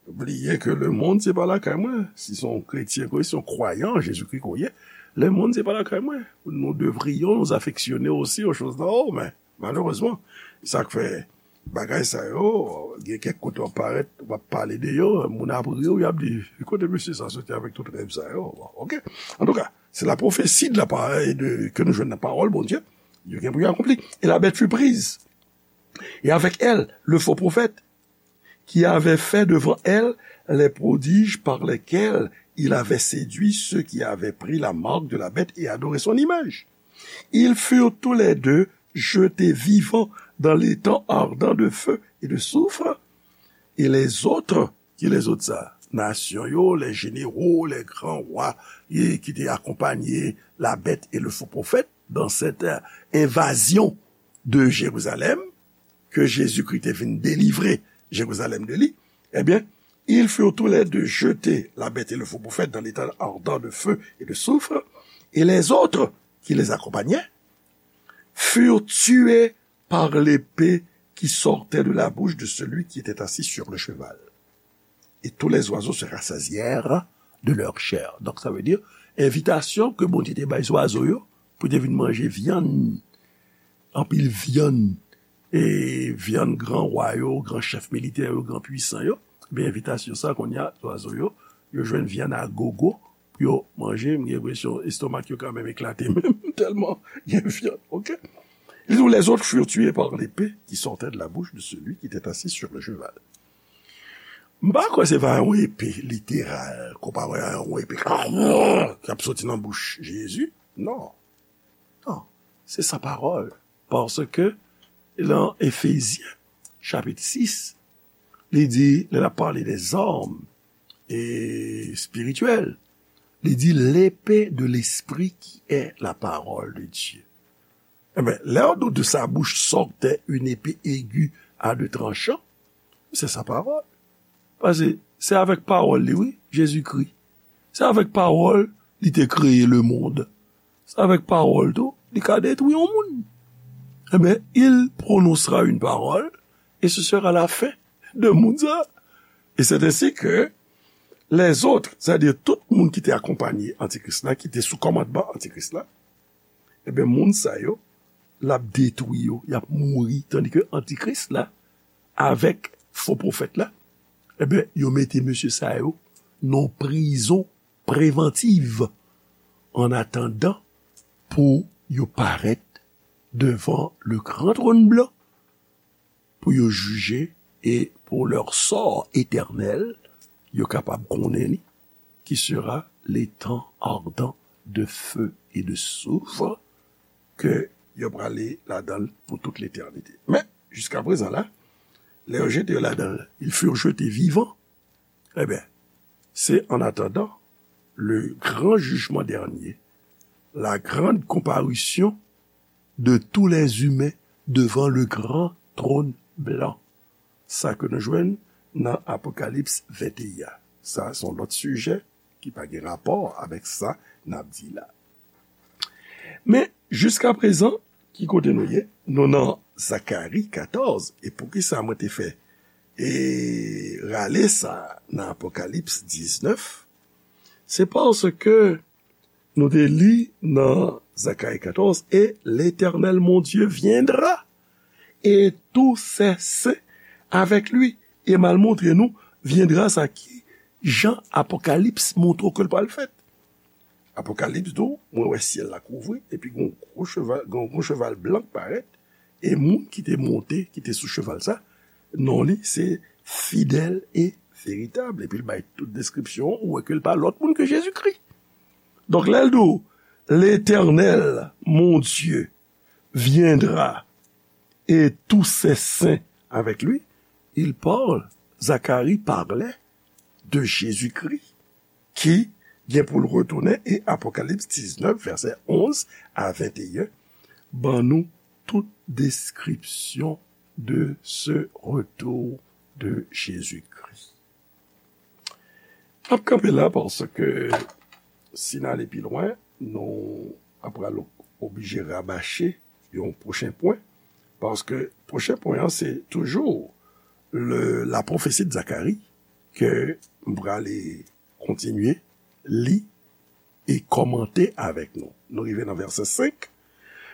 Bliye ke lemonn se pa lakay mwen. Si se yon kretyen ke w ye, si se yon kwayan an Jezikri ke w ye, lemonn se pa lakay mwen. Nous devrions nous affectionner aussi aux choses d'en haut, men malerezman, sa k fè bagay sa yo, gen kèk kote w ap parèt, w ap pale de yo, moun ap ri w, y ap di, "Kote mesye sa soti avèk tout rèv sa yo?" Bon, oke. Antouka, c'est la prophétie de la parole de, que nous jouons dans la parole, Bondye, yo gen pou yo akonpli. Et la bête fut prise. Et avec elle, le faux prophète, qui avait fait devant elle les prodiges par lesquels il avait séduit ceux qui avaient pris la marque de la bête et adoré son image. Ils furent tous les deux jetés vivants dans l'étang ardent de feu et de soufre, et les autres, qui les autres ça? Nasyon yo, les généraux, les grands rois, et qui étaient accompagnés la bête et le faux prophète dans cette euh, invasion de Jérusalem, ke Jezikri te vin delivre Jerizalèm de li, ebyen, ils furent tous les deux jetés, la bête et le faux prophète, dans l'étang ardent de feu et de soufre, et les autres qui les accompagnaient furent tués par l'épée qui sortait de la bouche de celui qui était assis sur le cheval. Et tous les oiseaux se rassasièrent de leur chair. Donk, sa vle di, envitasyon ke Bondye te bay zwazo yo, pou te vin manje vyann, anpil vyann, e vyann gran wa yo, gran chèf militè yo, gran pwisan yo, ebyen, envitasyon sa, kounye a, zwazo yo, yo jwenn vyann a gogo, pou yo manje, m gen enpresyon estomak yo kanmenm eklate menm, tèlman gen vyann, oke? Li di, les autres furent tués par l'épée qui sortait de la bouche de celui qui était assis sur le cheval. M pa kwè se pa yon epe literal, konpare a yon epe k ap soti nan bouch Jezi. Non. Non. Se sa pawòl. Paske, lan Efezyen, chapit sis, li di, lè l ap pale de zam e espirityèl, li di, l'épée de l'esprit qui est la parole de Dieu. Ebyen, lè w di de sa bouche sortait une épée aiguë à deux tranchants, se sa pawòl. Paske se avèk pawòl li, wi, Jezikri. Se avèk pawòl li te kreye lemonn. Se avèk pawòl tou, li ka detwi yon moun. Ebyen, il prononcera une parole, et ce sera la fin de moun sa. Et c'est ainsi que les autres, c'est-à-dire tout moun ki te akonpanye Antikris la, ki te sou kòmandman Antikris la, ebyen, moun sa yo, l ap detwi yo, y ap mouri, tandike Antikris la, avèk fo pwofèt la, ebyen, yo mete mesye sa yo nan prizon prevantiv, an atandan pou yo parèt devan le gran tròn blan, pou yo jije e pour leur sort éternel, yo kapab konnen li, qui sera l'étang ardent de feu et de soufre, ke yo prale ladan l pou tout letènite. Men, jiska prezan la, lè yo jete yo ladan l, ils furent jetés vivants. Ebyen, se en attendant le grand jugement dernier, la grande comparution de tous les humains devant le grand trône blanc. Sa ke nou jwenn nan Apokalips venteyen. Sa, se yon lòt sijè ki pa gen rapò avèk sa n ap di la. Men, jiska prezan, ki kote nou ye? Nou nan Zakari katòz. E poukisa mwen te fè e rale sa nan Apokalips diznèf? Se paske nou te li nan Zacharie quatorze, et l'Éternel mon Dieu viendra, et tous ses saints avec lui. E m al montre nou viendra sa ki jan Apokalips montre w ke l pral fèt. Apokalips di w, mwen wè syèl la kouvri, epi gen yon gwo cheval, gen yon gwo cheval blan k parèt, e moun ki te monte, ki te sou cheval sa, non li se Fidèl e Veritab. Epi l bay tout deskripsyon, ou wè ke l pa lòt moun ke Jezikri. Donk, lè l di w, L'Éternel, mon Dieu, viendra et tous ses saints avec lui, il parle, Zacharie parlait de Jésus-Christ, ki gen pou l retounen, e Apokalips diznèf, vèsè onz a venteyen, ban nou tout deskripsyon de ce retour de Jésus-Christ. N ap kanpe la paske si n ale pi lwen, nou ap pral oblije rabache yon pwochen pwen. Paske pwochen pwen an, se toujou le, la pwofesi de Zakari ke m prale kontinye li e kòmante avèk nou. Nou rive nan vèsè senk,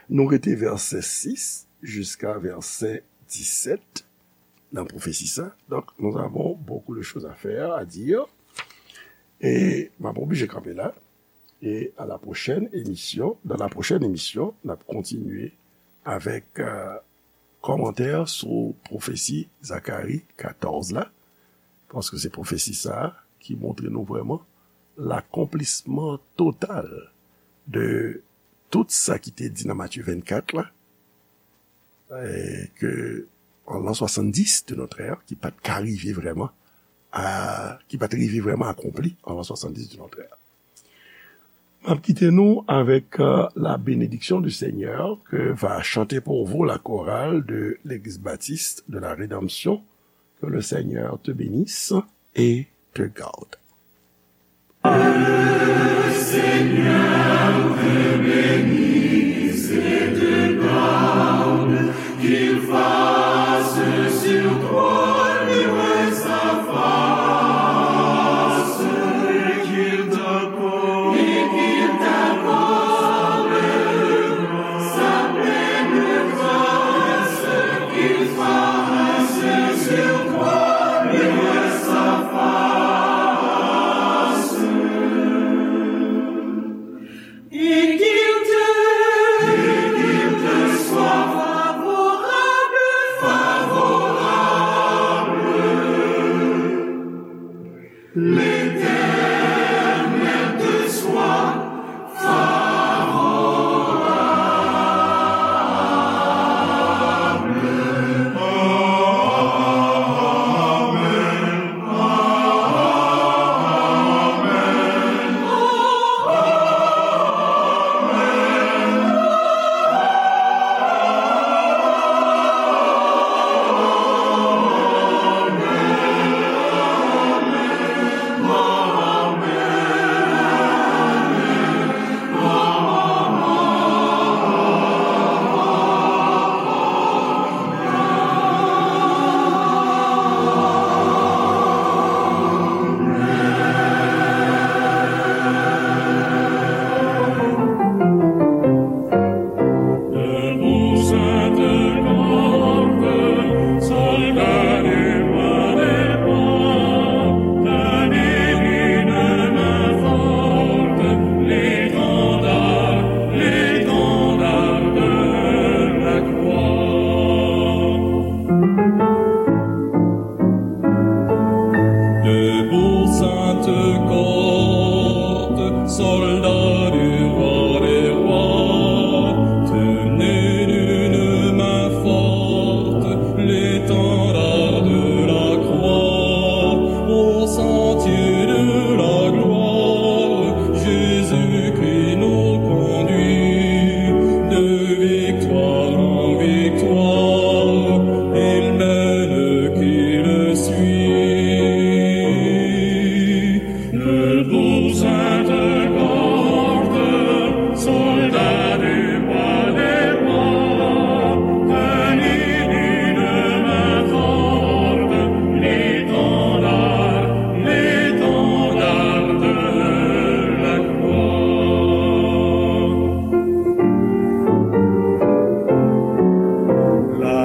nou rete vèsè sis jiska vèsè disèt nan pwofesi sa. Donc, nous avons beaucoup de choses à faire, à dire. E m ap oblije kanpe la. E à la prochaine émission, dans la prochaine émission, n ap kontinye avèk euh, kòmantè sou pwofesi Zakari katòz la, paske se pwofesi sa a ki montre nou vrèman lakonplisman total de tout sa ki te di nan Matye vennkat la, e ke an l'an soixante-dix de notre ère, ki pa t ka rive vrèman a, ki pa t rive vrèman akonpli an l'an soixante-dix de notre ère. M ap kite nou avèk euh, la bénédiction du Seigneur que va chanter pour vous la chorale de l'Église baptiste de la Rédemption. Que le Seigneur te bénisse et te garde.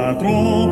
Patwon